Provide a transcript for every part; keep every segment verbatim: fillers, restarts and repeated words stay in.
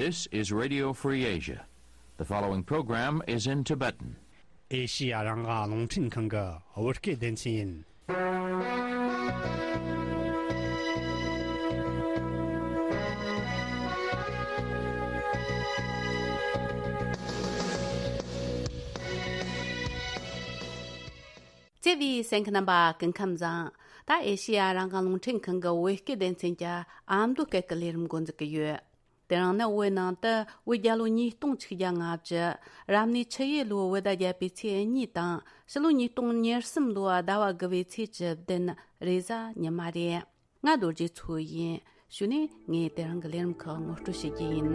This is Radio Free Asia. The following program is in Tibetan. ཨེ་ཤི་ཡ་རང་དབང་རླུང་འཕྲིན་ཁང་གི་བོད་སྐད་སྡེ་ཚན་ཡིན། བརྩེ་བའི་གསན་མཁན་རྣམ་པ་སྐུ་ཁམས་བཟང་། ད་ཨེ་ཤི་ཡ་རང་དབང་རླུང་འཕྲིན་ཁང་གི་བོད་སྐད་སྡེ་ཚན་གྱི་ཨ་མདོ་སྐད་ཀྱི་ལས་རིམ་འགོ་འཛུགས་ཀྱི་ཡོད། དེ་རིང་ནི་བོད་ནང་དུ་བོད་རྒྱལ་ལོ་ཉིས་སྟོང་ཆིག་བརྒྱ་ལྔ་བཅུ། རབ་གནས་ཆུ་ཡོས་ལོའི་བོད་ཟླ་བརྒྱད་པའི་ཚེས་གཉིས་དང་ཕྱི་ལོ་ཉིས་སྟོང་ཉེར་གསུམ་ལོའི་ཟླ་བ་དགུ་བའི་ཚེས་བཅུ་བདུན་རེས་གཟའ་ཉི་མ་རེད། ང་རྡོ་རྗེ་མཚོ་ཡིན། གཞུག་ནས་ངས་དེ་རིང་གི་ལས་རིམ་ཁག་ངོ་སྤྲོད་བྱེད་རྒྱུ་ཡིན།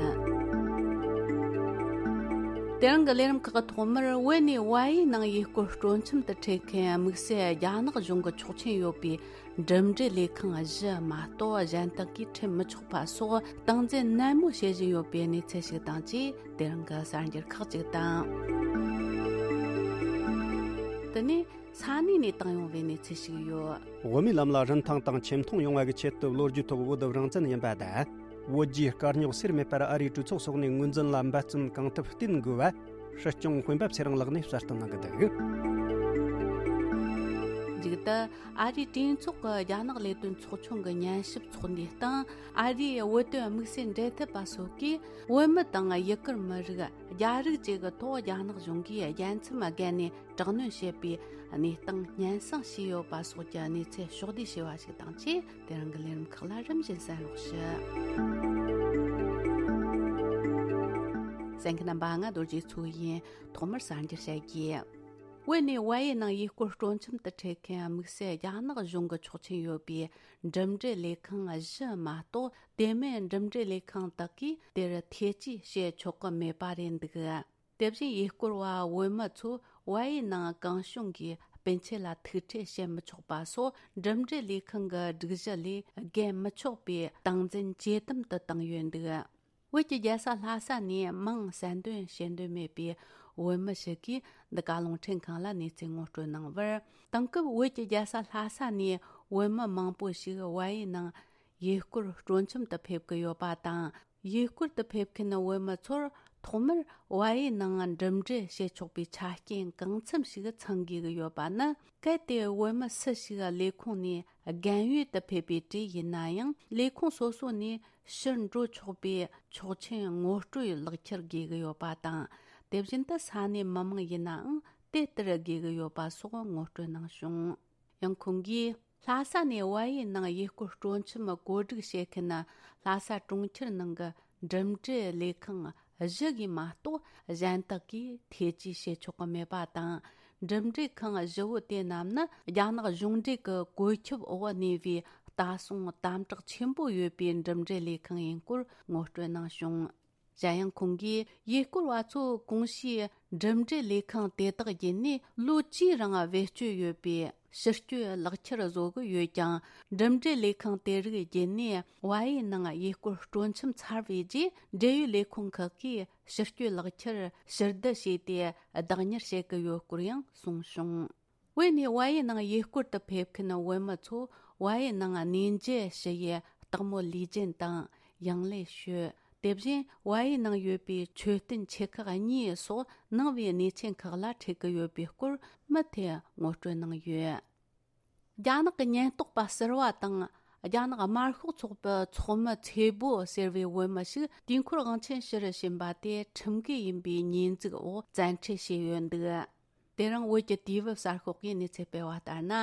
དེ་རིང་གི་ལས་རིམ་ཁག་གི་ཐོག་མར་བོད་ནས་བལ་ཡུལ་ནང་ཡུལ་སྐོར་སྤྲོ་འཆམ་དུ་ཁྲིད་མཁན་དམིགས་བསལ་རྒྱ་ནག་གཞུང་གི་ཆོག་མཆན་ཡོད་པའི་འགྲིམ་འགྲུལ་ལས་ཁང་བཞི་མ་གཏོགས་གཞན་དག་གིས་ཁྲིད་མི་ཆོག་པ་སོགས་སྟངས་འཛིན་ནན་མོ་བྱེད་བཞིན་ཡོད་པའི་གནས་ཚུལ་ཞིག་དང་བཅས། དེ་རིང་གི་གསར་འགྱུར་ཁག་ཅིག་དང་། དེ་ནས་ས་གནས་ནས་བཏང་ཡོང་བའི་གནས་ཚུལ་ཞིག་ཡོད། དབུ་མའི་ལམ་ལ་རིན་ཐང་དང་ཆེ་མཐོང་ཡོང་བ་གི་ཆེད་དུ་ལོ་རྒྱུས་ཐོག་བོད་རང་བཙན་ཡིན་པ་དང་། བོད་རྒྱའི་དཀའ་རྙོག་སེལ་མེད་པར་ཨ་རིའི་གྲོས་ཚོགས་སོགས་ནས་ངོས་འཛིན་ལ་འབད་བརྩོན་གང་ཐུབ་བསྟེན་དགོས་པ། སྲིད་སྐྱོང་སྤེན་པ་ཚེ་རིང་ལགས་ནས་གསལ་སྟོན་གནང་གི་འདུག་མཇུག་ཏུ་ཨ་རིའི་གྲོས་ཚོགས་ཀྱི་རྒྱ་ནག་ལས་དོན་ཚོགས་ཆུང་གི་ཉན་ཞིབ་ཚོགས་འདུའི་སྟེང་ཨ་རིའི་བོད་དོན་དམིགས་བསལ་འབྲེལ་མཐུད་པ་སོགས་ཀྱིས་བོད་མི་དང་ཡུ་གུར་མི་རིགས་རྒྱ་རིགས་བཅས་ཀྱི་ཐོག་རྒྱ་ནག་གཞུང་གིས་རྒྱལ་མཚམས་བརྒལ་ནས་དྲག་གནོན་བྱེད་པའི་གནས་སྟངས་སྙན་སེང་བྱས་ཡོད་པ་སོགས་ཀྱི་གནས་ཚུལ་ཕྱོགས་བསྡུས་བྱས་པ་ཞིག་དང་བཅས། དེ་རིང་གི་ལས་རིམ་ཁག་ལ་རིམ་བཞིན་གསན་རོགས་ཞུ། གསན་མཁན་རྣམ་པ། ང་རྡོ་རྗེ་མཚོ་ཡིན། ཐོག་མར་གསར་འགྱུར་བཤད་རྒྱུ། བོད་ནས་བལ་ཡུལ་ནང་ཡུལ་སྐོར་སྤྲོ་འཆམ་དུ་ཁྲིད་མཁན་དམིགས་བསལ་རྒྱ་ནག་གཞུང་གི་ཆོག་མཆན་ཡོད་པའི་འགྲིམ་འགྲུལ་ལས་ཁང་བཞི་མ་གཏོགས་དེ་མིན་འགྲིམ་འགྲུལ་ལས་ཁང་དག་གིས་དེར་ཐེ་ཇུས་བྱེད་ཆོག་གི་མེད་པ་རེད་འདུག་དེ་བཞིན་ཡུལ་སྐོར་བ་བོད་མི་ཚོ་བལ་ཡུལ་ནང་གང་བྱུང་གིས་སྤུན་མཆེད་ལ་ཐུག་འཕྲད་བྱེད་མི་ཆོག་པ་སོགས་འགྲིམ་འགྲུལ་ལས་ཁང་གི་སྒྲིག་གཞི་ལས་བརྒལ་མི་ཆོག་པའི་སྟངས་འཛིན་ཇེ་དམ་དུ་བཏང་ཡོད་འདུག་བོད་ཀྱི་རྒྱལ་ས་ལྷ་ས་ནས་མིང་གསལ་འདོན་བྱེད་འདོད་མེད་པའི་བོད་མི་ཞིག་གིས་འདི་ག་རླུང་འཕྲིན་ཁང་ལ་གནས་ཚུལ་ངོ་སྤྲོད་གནང་བར། དེང་སྐབས་བོད་ཀྱི་རྒྱལ་ས་ལྷ་ས་ནས་བོད་མི་མང་པོ་ཞིག་བལ་ཡུལ་ནང་ཡུལ་སྐོར་སྤྲོ་འཆམ་དུ་ཕེབས་ཀྱི་ཡོད་པ་དང་། ཡུལ་སྐོར་དུ་ཕེབས་མཁན་བོད་མི་ཚོར་ཐོག་མར་བལ་ཡུལ་ནང་འགྲིམ་འགྲུལ་བྱེད་ཆོག་པའི་ཆ་རྐྱེན་གང་འཚམ་ཞིག་ཚང་དགོས་ཀྱི་ཡོད་པ་ནི། གལ་ཏེ་བོད་མི་སུ་ཞིག་ལས་ཁུངས་ནས་རྒན་ཡོལ་དུ་ཕེབས་པའི་གྲས་ཡིན་ན་ཡང་། ལས་ཁུངས་སོ་སོ་ནས་ཕྱིར་འགྲོ་ཆོག་པའི་ཆོག་མཆན་ངོ་སྤྲོད་ལག་ཁྱེར་དགོས་ཀྱི་ཡོད་པ་དང་། དེ་བཞིན་དུ་ས་གནས་མི་མང་ཡིན་ནའང་དེ་ལྟར་དགོས་ཀྱི་ཡོད་པ་སོགས་ངོ་སྤྲོད་གནང་བྱུང་། ཡང་ཁོང་གིས། ལྷ་ས་ནས་བལ་ཡུལ་ནང་ཡུལ་སྐོར་སྤྲོ་འཆམ་བཀོད་སྒྲིག་བྱེད་མཁན་ལྷ་ས་གྲོང་ཁྱེར་ནང་གི་འགྲིམ་འགྲུལ་ལས་ཁང་བཞི་གིས་མ་གཏོགས་གཞན་དག་གིས་ཐེ་ཇུས་བྱེད་ཆོག་གི་མེད་པ་དང་། འགྲིམ་འགྲུལ་ཁང་བཞི་བོ་དེ་རྣམས་ནི་རྒྱ་ནག་གཞུང་འབྲེལ་གྱི་བཀོད་ཁྱབ་འོག་གནས་པའི་ལྟ་སྲུང་དམ་དྲག་ཆེན་པོ་ཡོད་པའི་འགྲིམ་འགྲུལ་ལས་ཁང་ཡིན་སྐོར་ངོ་སྤྲོད་གནང་བྱུང་། གཞན་ཡང་ཁོང་གིས་ཡུལ་སྐོར་བ་ཚོ་གོང་ཞུས་འགྲིམ་འགྲུལ་ལས་ཁང་དེ་དག་བརྒྱུད་ནས་ལོ་བཅུའི་རིང་བེད་སྤྱོད་ཡོད་པའི་ཕྱིར་སྐྱོད་ལག་ཁྱེར་བཟོ་གི་ཡོད་ཀྱང་། འགྲིམ་འགྲུལ་ལས་ཁང་དེ་རིགས་བརྒྱུད་ནས་བལ་ཡུལ་ནང་ཡུལ་སྐོར་སྤྲོ་འཆམ་ཚར་བའི་རྗེས། འབྲེལ་ཡོད་ལས་ཁུངས་ཁག་གིས་ཕྱིར་སྐྱོད་ལག་ཁྱེར་ཕྱིར་བསྡུ་བྱས་ཏེ་བདག་གཉེར་བྱེད་ཀྱི་ཡོད་སྐོར་ཡང་གསུངས་བྱུང་། བོད་ནས་བལ་ཡུལ་ནང་ཡུལ་སྐོར་དུ་ཕེབས་མཁན་བོད་མི་ཚོ་བལ་ཡུལ་ནང་གནས་མཇལ་ཞུ་ཡས་སྟག་མོ་ལུས་སྦྱིན་དང་ཡང་ལེ་ཤོད། དེ་བཞིན་བལ་ཡུལ་ནང་ཡོད་པའི་མཆོད་རྟེན་ཆེ་ཁག་གཉིས་སོགས་ནང་པའི་གནས་ཆེན་ཁག་ལ་ཁྲིད་ཀྱི་ཡོད་པའི་སྐོར་མུ་མཐུད་ངོ་སྤྲོད་གནང་ཡོད། རྒྱ་ནག་གི་ཉེན་རྟོག་པ་ཟུར་པ་དང་། རྒྱ་ནག་དམར་ཤོག་ཚོགས་པའི་ཚོགས་མི་ཚེ་བོ་ཟེར་བའི་བོད་མི་ཞིག་དུས་འཁོར་དབང་ཆེན་ཞུ་རུ་ཕྱིན་པ་དེ་ཁྲིམས་འགལ་ཡིན་པའི་ཉེས་འཛུགས་འོག་བཙན་ཁྲིད་བྱས་ཡོད་འདུག་དེ་རིང་བོད་ཀྱི་དུས་བབ་གསར་ཤོག་གིས་གནས་ཚུལ་སྤེལ་བ་ལྟར་ན།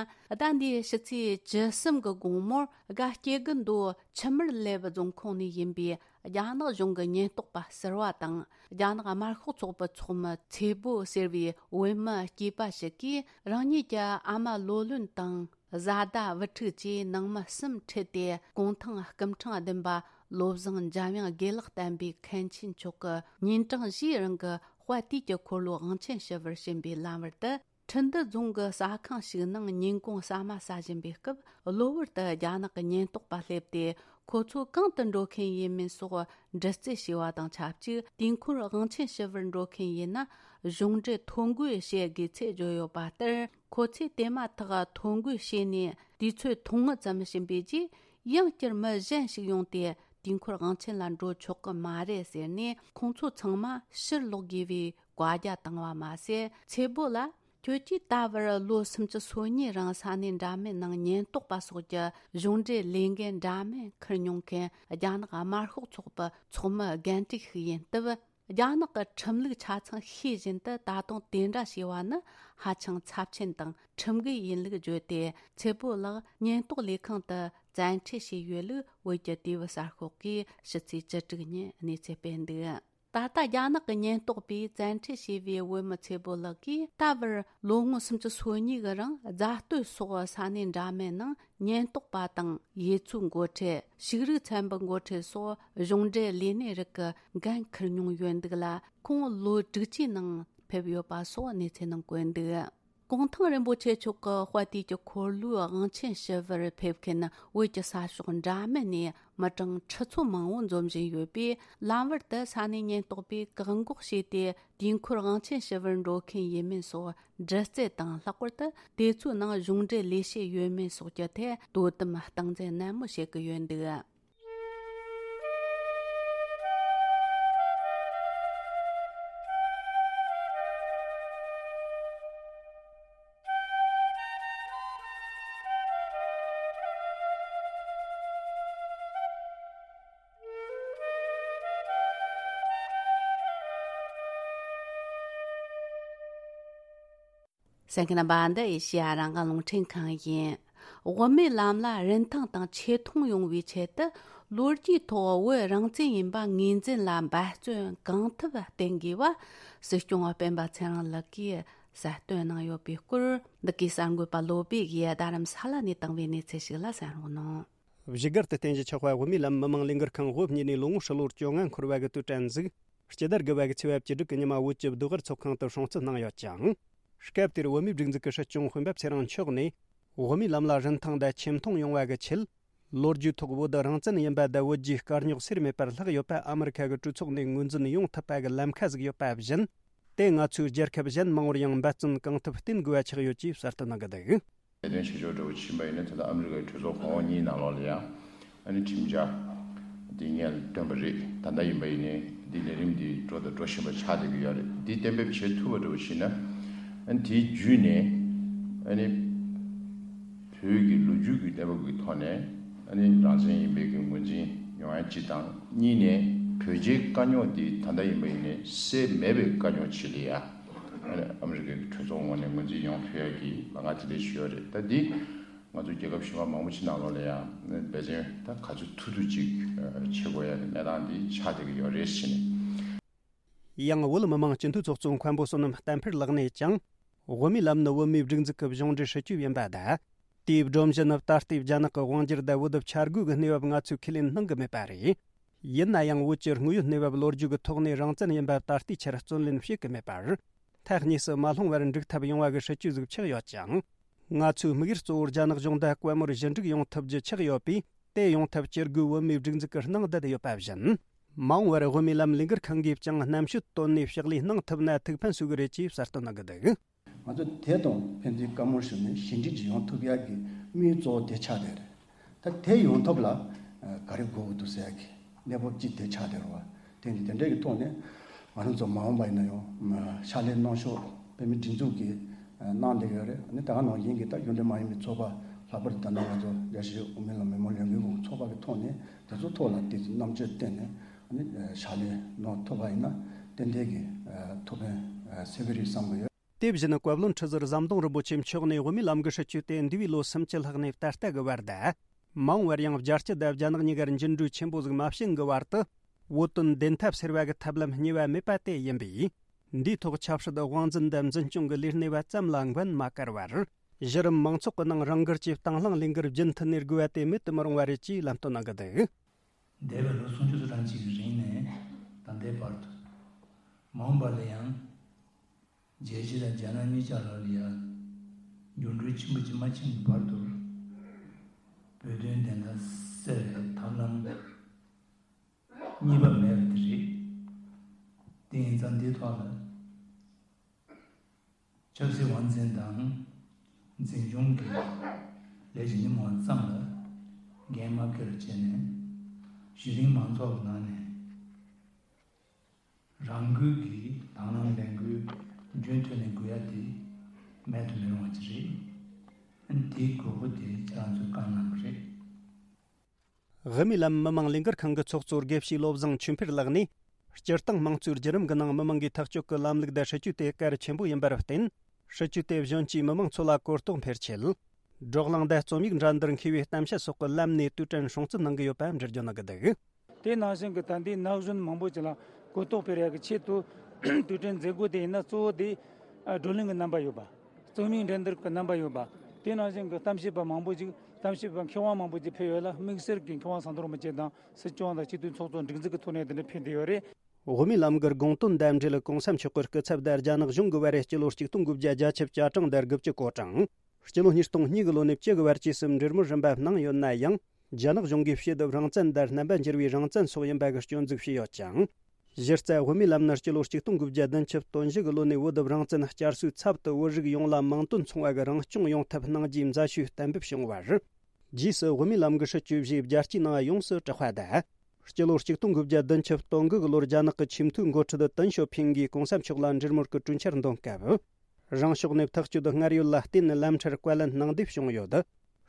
ཟླ་འདིའི་ཕྱི་ཚེས་བཅུ་གསུམ་གི་དགོང་མོར་དགའ་སྐྱེ་དགུ་མདོ་ཆུ་དམར་ལེབ་རྫོང་ཁོངས་ནས་ཡིན་པའི་རྒྱ་ནག་གཞུང་གི་ཉེན་རྟོག་པ་ཟུར་པ་དང་། རྒྱ་ནག་དམར་ཤོག་ཚོགས་པའི་ཚོགས་མི་ཚེ་བོ་ཟེར་བའི་བོད་མི་སྐྱེས་པ་ཞིག་གིས་རང་ཉིད་ཀྱི་ཨ་མ་ལོ་ལོན་དང་། བཟའ་ཟླ་བུ་ཕྲུག་བཅས་ནང་མི་གསུམ་ཁྲིད་དེ། གུང་ཐང་སྐུ་ཕྲེང་བདུན་པ་བློ་བཟང་འཇམ་དབྱངས་དགེ་ལེགས་བསྟན་པའི་མཁན་ཆེན་མཆོག་གི་ཉིན་གྲངས་བཞིའི་རིང་གི་དཔལ་དུས་ཀྱི་འཁོར་ལོ་དབང་ཆེན་ཞུ་བར་ཕྱིན་པའི་ལམ་བར་དུ། ཁྲི་འདུ་རྫོང་གི་ཟ་ཁང་ཞིག་ནང་ཉིན་གུང་ཟ་མ་ཟ་བཞིན་པའི་སྐབས། གློ་བུར་དུ་རྒྱ་ནག་གི་ཉེན་རྟོག་པ་སླེབས་ཏེ། ཁོ་ཚོ་གང་དུ་འགྲོ་མཁན་ཡིན་མིན་སོགས་འདྲི་རྩད་བྱས་པ་དང་ཆབས་ཅིག་དུས་འཁོར་དབང་ཆེན་ཞུ་བར་འགྲོ་མཁན་ཡིན་ན། གཞུང་འབྲེལ་ཐོ་འགོད་བྱེད་དགོས་ཚུལ་བརྗོད་ཡོད་པ་ལྟར། ཁོ་ཚོས་དེ་མ་ཐག་ཐོ་འགོད་བྱས་ནས་དུས་ཚོད་ཐུང་ངུ་ཙམ་ཕྱིན་པའི་རྗེས། ཡང་བསྐྱར་མི་གཞན་ཞིག་ཡོང་སྟེ། དུས་འཁོར་དབང་ཆེན་ལ་འགྲོ་ཆོག་གི་མ་རེད་ཟེར་ནས། ཁོང་ཚོ་ཚང་མ་ཕྱིར་ལོག་དགོས་པའི་བཀའ་རྒྱ་བཏང་བ་མ་ཟད། ཚེ་བོ་ལ། ཁྱོད་ཀྱིས་ད་བར་ལོ་སུམ་ཅུ་སོ་གཉིས་རིང་ས་གནས་འདྲ་མིན་ནང་ཉེན་རྟོག་པ་སོགས་ཀྱི་གཞུང་འབྲེལ་ལས་འགན་འདྲ་མིན་འཁུར་མྱོང་མཁན་རྒྱ་ནག་དམར་ཤོག་ཚོགས་པའི་ཚོགས་མི་རྒན་བཀྲིས་ཤིག་ཡིན་སྟབས། རྒྱ་ནག་གི་ཁྲིམས་ལུགས་ཆ་ཚང་ཤེས་བཞིན་དུ། ད་དུང་དེ་འདྲ་བྱས་པ་ནི་ཧ་ཅང་ཚབས་ཆེན་དང་ཁྲིམས་འགལ་ཡིན་ལུགས་བརྗོད་དེ། ཚེ་བོ་ལགས་ཉེན་རྟོག་ལས་ཁང་དུ་བཙན་ཁྲིད་བྱས་ཡོད་ལུགས་བོད་ཀྱི་དུས་བབ་གསར་ཤོག་གིས་ཕྱི་ཚེས་བཅུ་དྲུག་ཉིན་གནས་ཚུལ་སྤེལ་འདུག་ད་ལྟ་རྒྱ་ནག་གི་ཉེན་རྟོག་པས་བཙན་ཁྲིད་བྱས་པའི་བོད་མི་ཚེ་བོ་ལགས་ཀྱིས། ད་བར་ལོ་ངོ་སུམ་ཅུ་སོ་གཉིས་གི་རིང་རྫ་སྟོད་སོགས་ས་གནས་འདྲ་མིན་ནང་ཉེན་རྟོག་པ་དང་། ཡུལ་ཚོའི་འགོ་ཁྲིད། ཕྱུགས་རིགས་ཚན་པའི་འགོ་ཁྲིད་སོགས་གཞུང་འབྲེལ་ལས་སྣེ་རིགས་ཀྱི་འགན་འཁུར་མྱོང་ཡོད་འདུག་ལ། ཁོང་ལོ་དྲུག་ཅུའི་ནང་ཕེབས་ཡོད་པ་སོགས་གནས་ཚུལ་ནང་བཀོད་འདུག་གུང་ཐང་རིན་པོ་ཆེ་མཆོག་གི་དཔལ་དུས་ཀྱི་འཁོར་ལོའི་དབང་ཆེན་ཞུ་བར་ཕེབས་མཁན་བོད་ཀྱི་ས་ཕྱོགས་འདྲ་མིན་ནས་མི་གྲངས་ཁྲི་ཚོ་མང་བོ་འཛོམས་བཞིན་ཡོད་པས། ལམ་བར་དུ་ས་གནས་ཉེན་རྟོག་པས་བཀག་འགོག་བྱས་ཏེ། དུས་འཁོར་དབང་ཆེན་ཞུ་བར་འགྲོ་མཁན་ཡིན་མིན་སོགས་འདྲི་རྩད་དང་། ལྷག་པར་དུ་དེ་ཚོའི་ནང་གཞུང་འབྲེལ་ལས་བྱེད་ཡོད་མེད་སོགས་ཀྱི་ཐད་དོ་དམ་སྟངས་འཛིན་ནན་མོ་བྱེད་ཀྱི་ཡོད་འདུག་གསན་མཁན་རྣམ་པ། འདི་ཨེ་ཤེ་ཡ་རང་དབང་རླུང་འཕྲིན་ཁང་ཡིན། དབུ་མའི་ལམ་ལ་རིན་ཐང་དང་ཆེ་མཐོང་ཡོང་བའི་ཆེད་དུ། ལོ་རྒྱུས་ཐོག་བོད་རང་བཙན་ཡིན་པ་ངོས་འཛིན་ལ་འབད་བརྩོན་གང་ཐུབ་བསྟེན་དགོས་པ། སྲིད་སྐྱོང་སྤེན་པ་ཚེ་རིང་ལགས་ཀྱིས་གསལ་སྟོན་གནང་ཡོད་པའི་སྐོར། འདི་གའི་གསར་འགོད་པ་བློ་བྷེ་ཡིས་རྡ་རམ་ས་ལ་ནས་བཏང་བའི་གནས་ཚུལ་ཞིག་ལ་གསན་རོགས་གནང་། བཞུགས་སྒར་དུ་རྟེན་གཞི་ཆགས་པ་དབུ་མའི་ལམ་མི་མང་ལས་འགུལ་ཁང་དབུ་བརྙེས་ནས་ལོ་ངོ་ཧྲིལ་བོར་བཅོ་ལྔ་འཁོར་བ་གི་དུས་དྲན་གཟིགས། སྤྱི་ཟླ་དགུ་པ་གི་ཚེས་པ་བཅུ་དྲུག་གི་ཉི་མ་བོད་ཀྱི་བདུད་དབར་ཚོགས་ཁང་དུ་སྲུང་བརྩི་གནང་ཡོད་ཅིང་། སྐབས་དེར་བོད་མིའི་སྒྲིག་འཛུགས་ཀྱི་སྲིད་སྐྱོང་སྤེན་པ་ཚེ་རིང་མཆོག་ནས། དབུ་མའི་ལམ་ལ་རིན་ཐང་དང་ཆེ་མཐོང་ཡོང་བ་གི་ཆེད། ལོ་རྒྱུས་ཐོག་བོད་རང་བཙན་ཡིན་པ་དང་བོད་རྒྱའི་དཀའ་རྙོག་སེལ་མེད་པར་ལྷག་ཡོད་པ་ཨ་མི་རི་ཁ་གི་གྲོས་ཚོགས་ནས་ངོས་འཛིན་ཡོང་ཐུབ་པ་གི་ལམ་ཁ་ཟིག་ཡོད་པ་བཞིན། དེ་ང་ཚོའི་རྒྱལ་ཁབ་གཞན་མང་བོར་ཡང་འབད་བརྩོན་གང་ཐུབ་བསྟེན་དགོས་པ་ཆགས་ཡོད་ཅེས་གསལ་སྟོན་གནང་གི་འདུག་ལས་དོན་བྱེད་ཕྱོགས་འདྲ་བོ་ཕྱིན་པ་ཡིན་ན། ད་ལྟ་ཨ་མི་རི་ཀའི་གྲོས་ཚོགས་གོང་འོག་གཉིས་ནང་ལོགས་ལ་ཡང་ཨ་ནི་ཁྲིམས་འཆར་འདི་སྔོན་ལ་བཏོན་པ་རེད། ད་ལྟ་ཡིན་པ་ཡིན་ནའི་འདི་ལས་རིམ་འདི་འགྲོ་དང་འགྲོ་བཞིན་པ་ཆགས་བསྡད་ཀྱི་ཡོད་རེད། འདི་གཏན་འབེབས་བྱེད་ཐུབ་པ་འདྲ་བོ་ཞིག་ན། ཨ་ནི་དེའི་བརྒྱུད་ནས་ཨ་ནི་བོད་ཀྱི་ལོ་རྒྱུས་ཀྱི་གནས་བབ་ཀྱི་ཐོག་ནས་ཨ་ནི་རང་བཙན་ཡིན་པའི་གི་ངོས་འཛིན་ཡོང་ཡ་གཅིག་དང་། གཉིས་ནས་བོད་རྒྱའི་དཀའ་རྙོག་འདི་ད་ལྟ་ཡིན་པ་ཡིན་ནའི་སེལ་མེད་པའི་དཀའ་རྙོག་ཅིག་ལ་ཡ། ཨ་ནི་ཨ་མི་རི་ཀའི་གྲོས་ཚོགས་ངོས་ནས་ངོས་འཛིན་ཡོང་ཐུབ་ཡ་གི་ལམ་ཁ་དེ་འདྲ་ཞིག་ཡོད་རེད། ད་འདི་ང་ཚོ་རྒྱལ་ཁབ་གཞན་པ་མང་པོ་ཅིག་ནང་ལོགས་ལ་ཡང་འབད་བརྩོན་ད་ག་ཚོད་ཐུབ་ཐུབ་ཅིག་བྱེད་དགོས་ཡ་གི་གནས་སྟངས་འདི་ཆགས་བསྡད་ཀྱི་ཡོད་རེད་ཟེར་ནས། ཡང་བོད་མི་མང་སྤྱི་འཐུས་ཚོགས་གཙོ་མཁན་པོ་བསོད་ནམས་བསྟན་འཕེལ་ལགས་ནས་ཀྱང་། དབུ་མའི་ལམ་ནི་བོད་མིའི་སྒྲིག་འཛུགས་ཀྱི་གཞུང་འབྲེལ་སྲིད་ཇུས་ཡིན་པ་དང་། དེའི་སྒྲོམ་གཞི་ནི་ད་ལྟའི་རྒྱ་ནག་གི་དབང་སྒྱུར་དང་བོད་དུ་བཅའ་སྒོ་གི་གནས་བབ་ང་ཚོས་ཁས་ལེན་གནང་གི་མེད་པ་རེད། ཡིན་ན་ཡང་བོད་ཀྱི་དངོས་ཡོད་གནས་བབ་ལོ་རྒྱུས་ཀྱི་ཐོག་ནས་རང་བཙན་ཡིན་པ་ད་ལྟའི་ཆར་བརྩོན་ལེན་བྱེད་ཀྱི་མེད་པར། ཐག་ཉེ་སུ་མ་ལྷུང་བར་འགྲིག་ཐབས་ཡོང་བ་གི་སྲིད་ཇུས་ཟིག་ཆགས་ཡོད་ཅིང་། ང་ཚོའི་དམིགས་ཡུལ་གཙོ་བོ་རྒྱ་ནག་གཞུང་དང་དཔལ་མོར་ཞི་འགྲིག་ཡོང་ཐབས་ཀྱི་ཆགས་ཡོད་པས། དེ་ཡོང་ཐབས་བྱེད་དགོས་བོད་མིའི་སྒྲིག་འཛུགས་ཀྱི་སྣང་བསྡད་ཡོད་པ་བཞིན། མ་འོངས་པར་དབུ་མའི་ལམ་ལས་འགུལ་ཁང་གིས་ཀྱང་རྣམ་དཔྱོད་བཏོན་ནས་ཕྱག་ལས་གནང་ཐུབ་ན་ཐུགས་ཕན་གསོས་ཀྱི་རེད་ཅེས་གསལ་སྟོན་གནང་གི་འདུག་ང་ཚོ་དེ་དང་ཕན་ཚུན་བཀའ་མོལ་ཞུས་ནས་ཞི་འགྲིག་ཅིག་ཡོང་ཐུབ་ཡག་གི་དམིགས་ཡུལ་གཙོ་བོ་དེ་ཆགས་བསྡད་རེད། ད་དེ་ཡོང་ཐབས་ལ་ག་རེ་དགོས་ཀྱི་འདུག་ཟེར་ཡག་གི་གནས་བབ་ཅིག་དེ་ཆགས་བསྡད་རེད་བ། དེ་འདི་དེ་འདྲའི་གི་ཐོག་ནས་ང་རང་ཚོ་མ་འོངས་པ་ཡིན་ན་ཡང་ཕྱག་ལས་གནང་ཕྱོགས་བོད་མིའི་སྒྲིག་འཛུགས་ཀྱིས་གནང་བསྡད་ཡོད་རེད། ཨ་ནི་ད་ག་ནང་བཞིན་གྱི་ད་གཞུང་འབྲེལ་མ་ཡིན་པའི་ཚོགས་པ་ལྷག་པར་དུ་ད་ལྟ་ང་ཚོ་རྒྱལ་སྤྱིའི་དབུ་མའི་ལམ་མི་མང་ལས་འགུལ་ཁང་ཚོགས་པ་གི་ཐོག་ནས་དེ་ཚོ་ཐོག་ལ་དེ་ཚོ་རྣམ་དཔྱོད་བཏོན་ནས་ཨ་ནི་ཕྱག་ལས་གནང་ཐུབ་པ་ཡིན་ན་ཏན་ཏན་གྱི་ཐུགས་ཕན་གསོས་ཀྱི་རེད་བསམ་གྱི་ཡོད། དེ་བཞིན་བཀའ་བློན་ཁྲི་ཟུར་ཟམ་གདོང་རིན་པོ་ཆེ་མཆོག་ནས་དབུ་མའི་ལམ་གྱི་སྲིད་བྱུས་དེ་འདས་པའི་ལོ་སུམ་ཅུ་ལྷག་ནས་ད་ལྟ་གི་བར་དུ། མ་འོངས་པར་ཡང་རྒྱལ་སྤྱི་དང་རྒྱ་ནག་གཉིས་ཀར་འགྱུར་འགྲོས་ཆེན་པོ་ཟིག་མ་བྱུང་གི་བར་དུ། བོད་དོན་བདེན་མཐའ་གསལ་བ་གི་ཐབས་ལམ་གཉིས་པ་མེད་པ་དེ་ཡིན་པས། འདིའི་ཐོག་ཆབ་སྲིད་དབང་འཛིན་དང་འཛིན་སྐྱོང་གི་ལས་སྣེ་བ་ཙམ་ལ་འགན་མ་བཀར་བར། གཞི་རིམ་མང་ཚོགས་ཀྱི་ནང་རང་འགུལ་གྱིས་དང་བླངས་ལས་འགུལ་རྒྱུན་མཐུད་ནས་དགོས་པ་དེ་མེད་དུ་མི་རུང་བ་རེད་ཅེས་ལམ་སྟོན་གནང་གི་འདུག་འདས་པའི་ལོ་སུམ་ཅུ་སོ་གྲངས་ཅིག་གི་རིང་ནས་ད་ལྟའི་བར་དུ། མ་འོངས་པ་ལ་ཡང་། རྒྱལ་སྤྱི་དང་རྒྱ་ནག་གཉིས་ཆར་ལ་ཡང་འགྱུར་འགྲོས་ཆེན་པོ་ཅིག་མ་ཕྱིན་གྱི་བར་དུ། བོད་དོན་བདེན་མཐའ་གསལ་བའི་ཐབས་ལམ་གཉིས་པ་མེད་པ་དེ་རེད། དེ་ཡིན་ཙང་འདིའི་ཐོག་ལ། ཆབ་སྲིད་དབང་འཛིན་དང་འཛིན་སྐྱོང་གི་ལས་ཀྱི་ཉིན་མོ་ཙམ་ལ་འགན་མ་འཁྱེར་བྱས་ནས། གཞི་རིམ་མང་ཚོགས་ཀྱི་ནང་ནས་རང་འགུལ་གྱིས་དང་བླངས་ལས་འགུལ་རྒྱུན་མཐུད་ནས་དགོས་ཡ་དེ་མེད་དུ་མི་རུང་བ་ཅིག་རེད། དེའི་དགོས་མཁོ་དེ་ཁྱེད་རང་ཚོས་བཀའ་གནང་བ་རེད། དབུ་མའི་ལམ་མི་མང་ལས་འགུལ་ཁང་གི་ཚོགས་གཙོ་དགེ་བཤེས་བློ་བཟང་ཆོས་འཕེལ་ལགས་ནས། སྤྱིར་བཏང་དམངས་གཙོའི་བརྒྱུད་རིམ་གྱི་ནང་མི་མང་གིས་ཐག་གཅོད་ཀྱི་ལམ་ལུགས་དང་སྲིད་ཇུས་དེ་གལ་ཆེན་པོ་ཡིན་པར་བརྟེན། སྲིད་ཇུས་དེ་གཞོན་སྐྱེས་མི་མང་ཚོ་ལ་གོ་རྟོགས་འཕེལ་ཆེད། བགྲོ་གླེང་དང་རྩོམ་ཡིག་འགྲན་བསྡུར་མཁས་པའི་གཏམ་བཤད་སོགས་ཀྱི་ལམ་ནས་དུས་དྲན་སྲུང་བརྩི་གནང་གི་ཡོད་པ་འགྲེལ་བརྗོད་གནང་གི་འདུག། དེ་ནང་བཞིན་གྱི་ད་ལྟའི་ན་གཞོན་མང་པོ་ཅིག་ལ་གོ་རྟོགས་སྤེལ་ཡག་གི་ཆེད་དུ་དུས་དྲན་མཛད་སྒོ་དེ་ཡིན་ན་གཙོ་བོ་དེ་བགྲོ་གླེང་གི་རྣམ་པ་ཡོད་པ། རྩོམ་ཡིག་འགྲན་བསྡུར་གྱི་རྣམ་པ་ཡོད་པ། དེ་ནང་བཞིན་གྱི་གཏམ་བཤད་པ་མང་པོ་ཅིག་གཏམ་བཤད་པ་མཁས་དབང་མང་པོ་ཅིག་ཕེབས་ཡོད་ལ། དམིགས་བསལ་གྱི་མཁས་དབང་ཟམ་གདོང་རིན་པོ་ཆེ་དང་སྲིད་སྐྱོང་དང་སྤྱི་འཐུས་ཚོགས་གཙོ་འགྲིག་འཛུགས་ཀྱི་ཐོག་ནས་དེ་འདྲ་ཕེབས་བསྡད་ཡོད་རེད། དབུ་མའི་ལམ་གྱི་དགོངས་དོན་དང་འབྲེལ་གོང་ས་མཆོག་གི་སྐུ་ཚབ་དང་རྒྱ་ནག་གཞུང་གི་བར་སྤྱི་ལོ་ཆིག་སྟོང་དགུ་བརྒྱ་བརྒྱད་ཅུ་གྱ་གྲངས་དང་དགུ་བཅུ་གོ་གྲངས། སྤྱི་ལོ་ཉིས་སྟོང་གཉིས་ཀྱི་ལོ་ནས་བཅུ་གི་བར་བཅས་སུ་འབྲེལ་མོལ་རིམ་པ་གནང་ཡོད་ན་ཡང་། རྒྱ་ནག་གཞུང་གིས་ཕྱི་བསྡུ་རང་བཙན་དང་རྣམ་པ་འགྱུར་བའི་རང་བཙན་སོགས་ཡིན་པ་གི་སྐྱོན་འཛུགས་བྱས་ཡོད་ཅིང་། གཞི་རྩ་དབུ་མའི་ལམ་ནི་སྤྱི་ལོ་ཆིག་སྟོང་དགུ་བརྒྱ་བདུན་ཅུ་དོན་བཞི་གི་ལོ་ནས་བོད་རང་བཙན་བསྐྱར་གསོའི་ཚབ་ཏུ་བོད་རིགས་ཡོངས་ལ་མིང་དོན་མཚུངས་པ་གི་རང་སྐྱོང་ཡོང་ཐབས་གནང་རྒྱུའི་མཛད་ཞུ་གཏན་འབེབས་བྱུང་བར། རྗེས་སུ་དབུ་མའི་ལམ་གྱི་སྲིད་བྱུས་བཞིའི་རྒྱལ་སྤྱིའི་ནང་ཡོངས་སུ་གྲགས་པ་དང་། སྤྱི་ལོ་ཆིག་སྟོང་དགུ་བརྒྱ་བདུན་ཅུ་དོན་དགུ་གི་ལོར་རྒྱ་ནག་གི་ཆེས་མཐོའི་འགོ་ཁྲིད་ཏེང་ཞའོ་ཕིང་གིས་གོང་ས་མཆོག་ལ་འབྲེལ་མོལ་གྱི་གྲོས་འཆར་འདོན་སྐབས། རང་ཕྱོགས་ནས་ཐག་གཅོད་སྔར་ཡོད་ལ་བརྟེན་ནས་ལམ་ཁྲལ་བཀའ་ལན་གནང་འདེབས་བྱུང་ཡོད།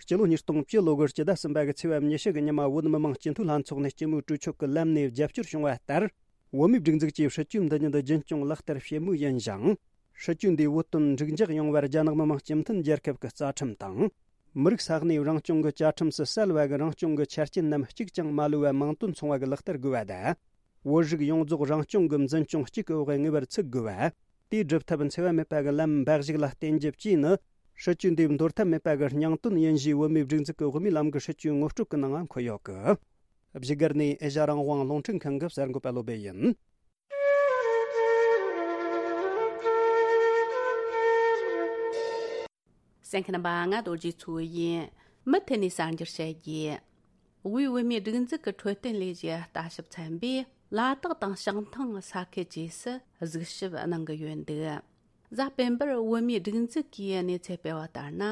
སྤྱི་ལོ་ཉིས་སྟོང་བཅུ་ལོ་དགུ་སྤྱི་ཟླ་གསུམ་པ་གི་ཚེས་པ་ཉི་ཤུ་གི་ཉི་མ་བོད་མི་མང་སྤྱི་འཐུས་ལྷན་ཚོགས་ནས་སྤྱི་མོས་གྲོས་ཆོད་ཀྱི་ལམ་ནས་རྒྱབ་སྐྱོར་བྱུང་བ་ལྟར། བོད་མིའི་སྒྲིག་འཛུགས་ཀྱིས་སྲིད་ཇུས་འདི་ཉིད་རྒྱུན་སྐྱོང་ལག་བསྟར་བྱེད་མུས་ཡིན་ཞིང་། སྲིད་ཇུས་འདིའི་བོད་དོན་འགྲིག་འཇགས་ཡོང་བར་རྒྱ་ནག་མི་དམངས་སྤྱི་མཐུན་རྒྱལ་ཁབ་ཀྱི་རྩ་ཁྲིམས་དང་། མི་རིགས་ས་གནས་རང་སྐྱོང་གི་བཅའ་ཁྲིམས་སུ་གསལ་བ་གི་རང་སྐྱོང་གི་ཆ་རྐྱེན་རྣམས་གཅིག་ཀྱང་མ་ལུས་པ་མིང་དོན་མཚུངས་པ་གི་ལག་བསྟར་དགོས་པ་དང་། བོད་རིགས་ཡོངས་རྫོགས་རང་སྐྱོང་གི་འཛིན་སྐྱོང་གཅིག་གི་འོག་ངེས་པར་ཚུད་དགོས་པ། དེའི་སྒྲུབ་ཐབས་འཚེ་བ་མེད་པ་གི་ལམ་འབའ་ཞིག་ལ་བརྟེན་རྒྱུ་བཅས་ནི། སྲིད་ཇུས་འདིའི་འདོར་ཐབས་མེད་པ་གི་སྙིང་དོན་ཡིན་ཞེས་བོད་མིའི་སྒྲིག་འཛུགས་ཀྱི་དབུ་མའི་ལམ་གྱི་སྲིད་ཇུས་ངོ་སྤྲོད་ཀྱི་ནང་འཁོད་ཡོད་གི། བཞུགས་སྒར་ནས་ཨེ་ཤ་རང་དབང་རླུང་འཕྲིན་ཁང་གི་གསར་འགོད་པ་བློ་བྷེ་ཡིན། གསན་མཁན་རྣམ་པ་ང་རྡོ་རྗེ་མཚོ་ཡིན། མུ་མཐུད་ནས་གསར་འགྱུར་བཤད་རྒྱུ། དབུས་བོད་མིའི་སྒྲིག་འཛུགས་ཀྱི་འཕྲོད་བསྟེན་ལས་གཞིའི་ལྟ་ཞིབ་ཚན་པས་ལ་དྭགས་དང་བྱང་ཐང་ས་ཁུལ་བཅས་སུ་གཟིགས་ཞིབ་གནང་གི་ཡོད་འདུག། གཟའ་སྤེན་པར་བོད་མིའི་སྒྲིག་འཛུགས་ཀྱིས་གནས་ཚུལ་སྤེལ་བ་ལྟར་ན།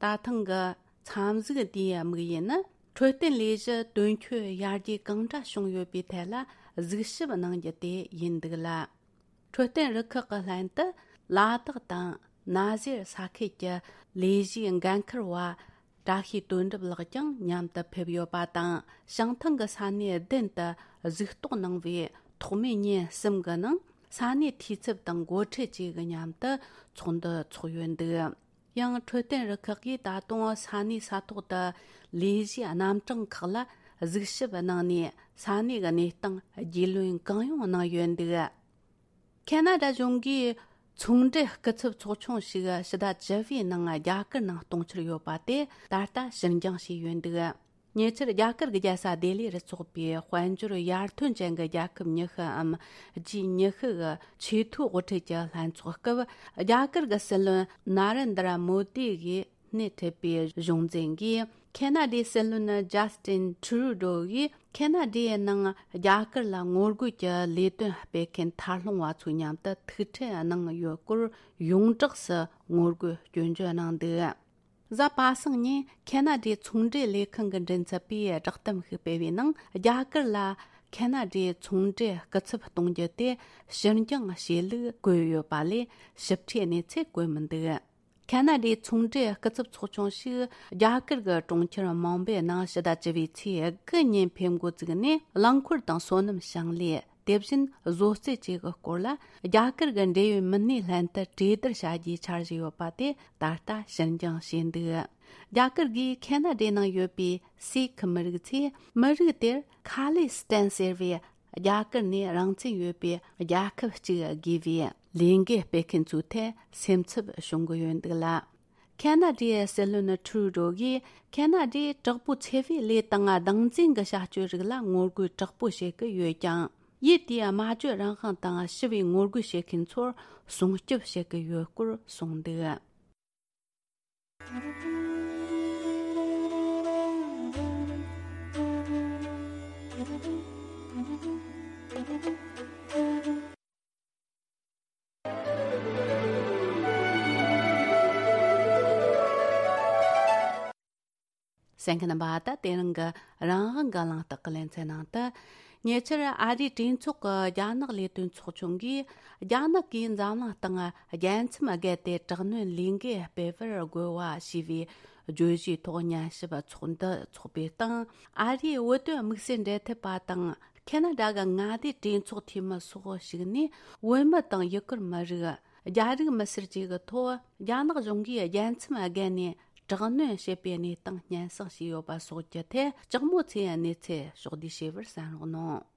ད་ཐེངས་ཀྱི་འཚམས་གཟིགས་འདིའི་དམིགས་ཡུལ་ནི། འཕྲོད་བསྟེན་ལས་གཞི་དོན་འཁྱོལ་ཡར་རྒྱས་གང་འདྲ་བྱུང་ཡོད་པའི་ཐད་ལ་གཟིགས་ཞིབ་གནང་རྒྱུ་དེ་ཡིན་འདུག་ལ། འཕྲོད་བསྟེན་རུ་ཁག་གི་ལྷན་དུ་ལ་དྭགས་དང་ན་གཞར་ས་ཁུལ་གྱི་ལས་གཞིའི་འགན་འཁུར་བ་བཀྲ་ཤིས་དོན་གྲུབ་ལགས་ཀྱང་མཉམ་དུ་ཕེབས་ཡོད་པ་དང་། བྱང་ཐང་གི་ས་གནས་བདུན་དུ་གཟིགས་རྟོག་གནང་བའི་ཐོག་མའི་ཉིན་གསུམ་གྱི་ནང་ས་གནས་འཐུས་ཚབ་དང་འགོ་ཁྲིད་བཅས་ཀྱི་མཉམ་དུ་ཚོགས་འདུ་འཚོགས་ཡོད་འདུག། ཡང་འཕྲོད་བསྟེན་རུ་ཁག་གིས་ད་དུང་ས་གནས་ས་ཐོག་ཏུ་ལས་གཞིའི་རྣམ་གྲངས་ཁག་ལ་གཟིགས་ཞིབ་གནང་ནས། ས་གནས་ཀྱི་གནས་སྟངས་རྒྱུས་ལོན་གང་ཡོང་གནང་ཡོད་འདུག། ཁེ་ན་ཌ་གཞུང་གིས་ཚོང་འབྲེལ་སྐུ་ཚབ་ཚོགས་ཆུང་ཞིག་ཕྱི་ཟླ་བཅུ་པའི་ནང་རྒྱ་གར་ནང་གཏོང་འཆར་ཡོད་པ་དེ་ད་ལྟ་ཕྱིར་འགྱངས་བྱས་ཡོད་འདུག། ཉེ་ཆར་རྒྱ་གར་གྱི་རྒྱལ་ས་ལྡི་ལི་རུ་འཚོགས་པའི་དཔལ་འབྱོར་ཡར་ཐོན་ཅན་གྱི་རྒྱལ་ཁབ་ཉི་ཤུ་འམ་ཇི་ཉི་ཤུ་གི་ཆེས་མཐོའི་དབུ་ཁྲིད་ཀྱི་ལྷན་ཚོགས་སྐབས། རྒྱ་གར་གྱི་སྲིད་བློན་ན་རེན་དྲ་མོ་དི་གིས་སྣེ་ཁྲིད་པའི་གཞུང་འཛིན་གྱིས། ཁེ་ན་ཌའི་སྲིད་བློན་ཇཱ་སི་ཏིན་ཁྲུ་རུ་ཌོ་ཡིས་ཁེ་ན་ཌའི་ནང་རྒྱ་གར་ལ་ངོ་རྒོལ་གྱི་ལས་དོན་སྤེལ་མཁན་ཐར་ལྷུང་བ་ཚོའི་མཉམ་དུ་ཐུག་འཕྲད་གནང་ཡོད་སྐོར་ཡོངས་གྲགས་སུ་ངོ་རྒོལ་སྐྱོན་བརྗོད་གནང་འདུག། གཟའ་པ་སངས་ཉིན་ཁེ་ན་ཌའི་ཚོང་འབྲེལ་ལས་ཁང་གི་མགྲིན་ཚབ་པས་བསྒྲགས་གཏམ་ཞིག་སྤེལ་བའི་ནང་། རྒྱ་གར་ལ་ཁེ་ན་ཌའི་ཚོང་འབྲེལ་སྐུ་ཚབ་གཏོང་རྒྱུ་དེ་ཕྱིར་འགྱངས་བྱེད་ལུགས་བཀོད་ཡོད་པ་ལས་ཞིབ་ཕྲའི་གནས་ཚུལ་བཀོད་མི་འདུག། ཁེ་ན་ཌའི་ཚོང་འབྲེལ་སྐུ་ཚབ་ཚོགས་ཆུང་ཞིག་རྒྱ་གར་གྱི་གྲོང་ཁྱེར་མུམ་བྷེ་ནང་ཕྱི་ཟླ་བཅུ་པའི་ཚེས་དགུ་ཉིན་ཕེབས་འགོ་བཙུགས་ནས། རླངས་འཁོར་དང་སོ་ནམ་ཞིང་ལས། དེ་བཞིན་བཟོ་རྩལ་བཅས་ཀྱི་སྐོར་ལ་རྒྱ་གར་གྱི་འབྲེལ་ཡོད་མི་སྣའི་ལྷན་དུ་གྲོས་བསྡུར་བྱ་རྒྱུའི་འཆར་གཞི་ཡོད་པ་དེ་ད་ལྟ་ཕྱིར་འགྱངས་བྱས་འདུག། རྒྱ་གར་གྱིས་ཁེ་ན་ཌའི་ནང་ཡོད་པའི་སི་ཁི་མི་རིགས་ཚོས་མི་རིགས་དེར་ཁ་ལི་སི་ཐན་ཟེར་བའི་རྒྱ་གར་ནས་རང་བཙན་ཡོད་པའི་རྒྱལ་ཁབ་ཅིག་དགོས་པའི་ལས་འགུལ་སྤེལ་མཁན་ཚོའི་ཐད་སེམས་འཚབ་བྱུང་གི་ཡོད་འདུག་ལ། ཁེ་ན་ཌའི་སྲིད་བློན་ཁྲུ་རུ་ཌོ་གིས་ཁེ་ན་ཌའི་དྲག་པོའི་འཚེ་བའི་ལས་དང་སྡང་འཛིན་གྱི་བྱ་སྤྱོད་རིགས་ལ་ངོ་རྒོལ་དྲག་པོ་བྱེད་ཀྱི་ཡོད་ཀྱང་། ཡུལ་དེའི་སྨྲ་བརྗོད་རང་དབང་དང་ཞི་བའི་ངོ་རྒོལ་བྱེད་མཁན་ཚོར་སྲུང་སྐྱོབ་བྱེད་ཀྱི་ཡོད་སྐོར་གསུངས་འདུག། གསན་མཁན་རྣམ་པ། ད་དེ་རིང་གི་རང་དབང་གི་གླེང་སྟེགས་ཀྱི་ལེ་ཚན་ནང་དུ། ཉེ་ཆར་ཨ་རིའི་གྲོས་ཚོགས་ཀྱི་རྒྱ་ནག་ལས་དོན་ཚོགས་ཆུང་གིས། རྒྱ་ནག་གིས་འཛམ་གླིང་སྟེང་རྒྱལ་མཚམས་བརྒལ་ཏེ་དྲག་གནོན་ལས་འགུལ་སྤེལ་བར་རྒོལ་བ་ཞེས་པའི་བརྗོད་གཞིའི་ཐོག་ཉན་ཞིབ་ཚོགས་འདུ་འཚོགས་པའི་སྟེང་། ཨ་རིའི་བོད་དོན་དམིགས་བསལ་འབྲེལ་མཐུད་པ་དང་། ཁེ་ན་ཌ་གི་མངའ་སྡེའི་གྲོས་ཚོགས་འཐུས་མི་སོགས་ཞུགས་ནས། བོད་མི་དང་ཡུ་གུར་མི་རིགས། རྒྱ་རིགས་མི་སེར་བཅས་ཀྱི་ཐོག་རྒྱ་ནག་གཞུང་གིས་རྒྱལ་མཚམས་བརྒལ་ནས་དྲག་གནོན་བྱེད་པའི་གནས་སྟངས་སྙན་སེང་བྱས་ཡོད་པ་སོགས་ཀྱི་ཐད། ལྕགས་མོ་ཚེ་ཡི་གནས་ཚུལ་ཕྱོགས་བསྡུས་བྱས་པར་གསན་རོགས་གནང་།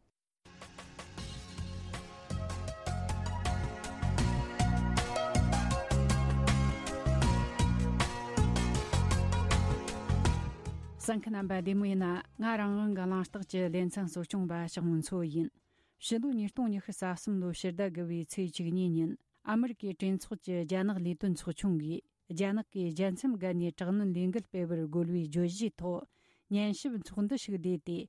གསན་མཁན་རྣམ་པ་བདེ་མོ་ཡིན་ན། ང་རང་དབང་གི་གླེང་སྟེགས་ཀྱི་ལེ་ཚན་གཙོ་སྐྱོང་པ་ཞག་མོ་མཚོ་ཡིན། ཕྱི་ལོ་ཉིས་སྟོང་ཉི་ཤུ་རྩ་གསུམ་ལོའི་ཕྱི་ཟླ་དགུ་པའི་ཚེས་བཅུ་གཉིས་ཉིན། ཨ་མི་རི་ཀའི་གྲོས་ཚོགས་ཀྱི་རྒྱ་ནག་ལས་དོན་ཚོགས་ཆུང་གིས། རྒྱ་ནག་གིས་རྒྱལ་མཚམས་བརྒལ་ནས་དྲག་གནོན་ལས་འགུལ་སྤེལ་བར་རྒོལ་བའི་བརྗོད་གཞིའི་ཐོག་ཉན་ཞིབ་ཚོགས་འདུ་ཞིག་བསྡུས་ཏེ།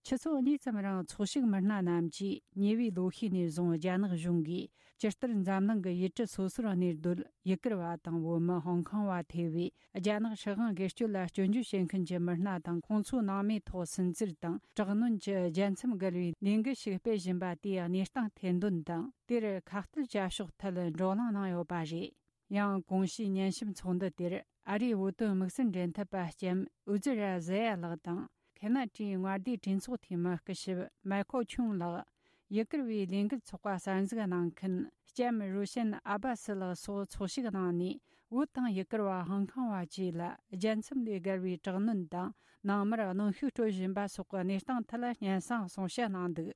ཆུ་ཚོད་གཉིས་ཙམ་རིང་ཚོགས་ཞུགས་མི་སྣ་རྣམས་ཀྱིས་ཉེ་བའི་ལོ་ཤས་ནས་བཟུང་རྒྱ་ནག་གཞུང་གིས་ཇི་ལྟར་འཛམ་གླིང་གི་ཡུལ་གྲུ་སོ་སོར་གནས་སྡོད་ཡུ་གུར་བ་དང་བོད་མི། ཧོང་ཀོང་བ་ཐེ་བའི་རྒྱ་ནག་སྲིད་དབང་སྒེར་གཅོད་ལ་སྐྱོན་བརྗོད་བྱེད་མཁན་གྱི་མི་སྣ་དང་། ཁོང་ཚོའི་ནང་མིའི་ཐོག་སུན་གཙེར་དང་དྲག་གནོན་གྱི་རྒྱལ་མཚམས་བརྒལ་བའི་ལས་འགུལ་ཞིག་སྤེལ་བཞིན་པ་དེའི་གནས་སྟངས་ཐེར་འདོན་དང་། དེར་ཁ་གཏད་བྱ་ཕྱོགས་ཐད་བགྲོ་གླེང་གནང་ཡོད་པ་རེད། ཡང་གོང་ཞུས་ཉན་ཞིབ་ཚོགས་འདུ་དེར་ཨ་རིའི་བོད་དོན་དམིགས་བསལ་འབྲེལ་མཐུད་པ་ལྕམ་ཨུ་ཛི་ར་ཟེ་ཡ་ལགས་དང་། ཁེ་ན་ཌའི་མངའ་སྡེའི་གྲོས་ཚོགས་འཐུས་མི་སྐུ་ཞབས་མའི་ཁོ་ཆུང་ལགས། ཡུ་གུར་བའི་ལས་འགུལ་ཚོགས་པ་གསར་འཛུགས་གནང་མཁན་ལྕམ་རུ་ཤན་ཨ་བ་སི་ལགས་སོགས་ཚོགས་ཞུགས་གནང་ནས། བོད་དང་ཡུ་གུར་བ། ཧོང་ཀོང་བ་བཅས་ལ་རྒྱལ་མཚམས་ལས་བརྒལ་བའི་དྲག་གནོན་དང་། ནང་མིར་གནོན་ཤུགས་སྤྲོད་བཞིན་པ་སོགས་ཀྱི་གནས་སྟངས་ཐད་སྙན་སེང་གསུང་བཤད་གནང་འདུག།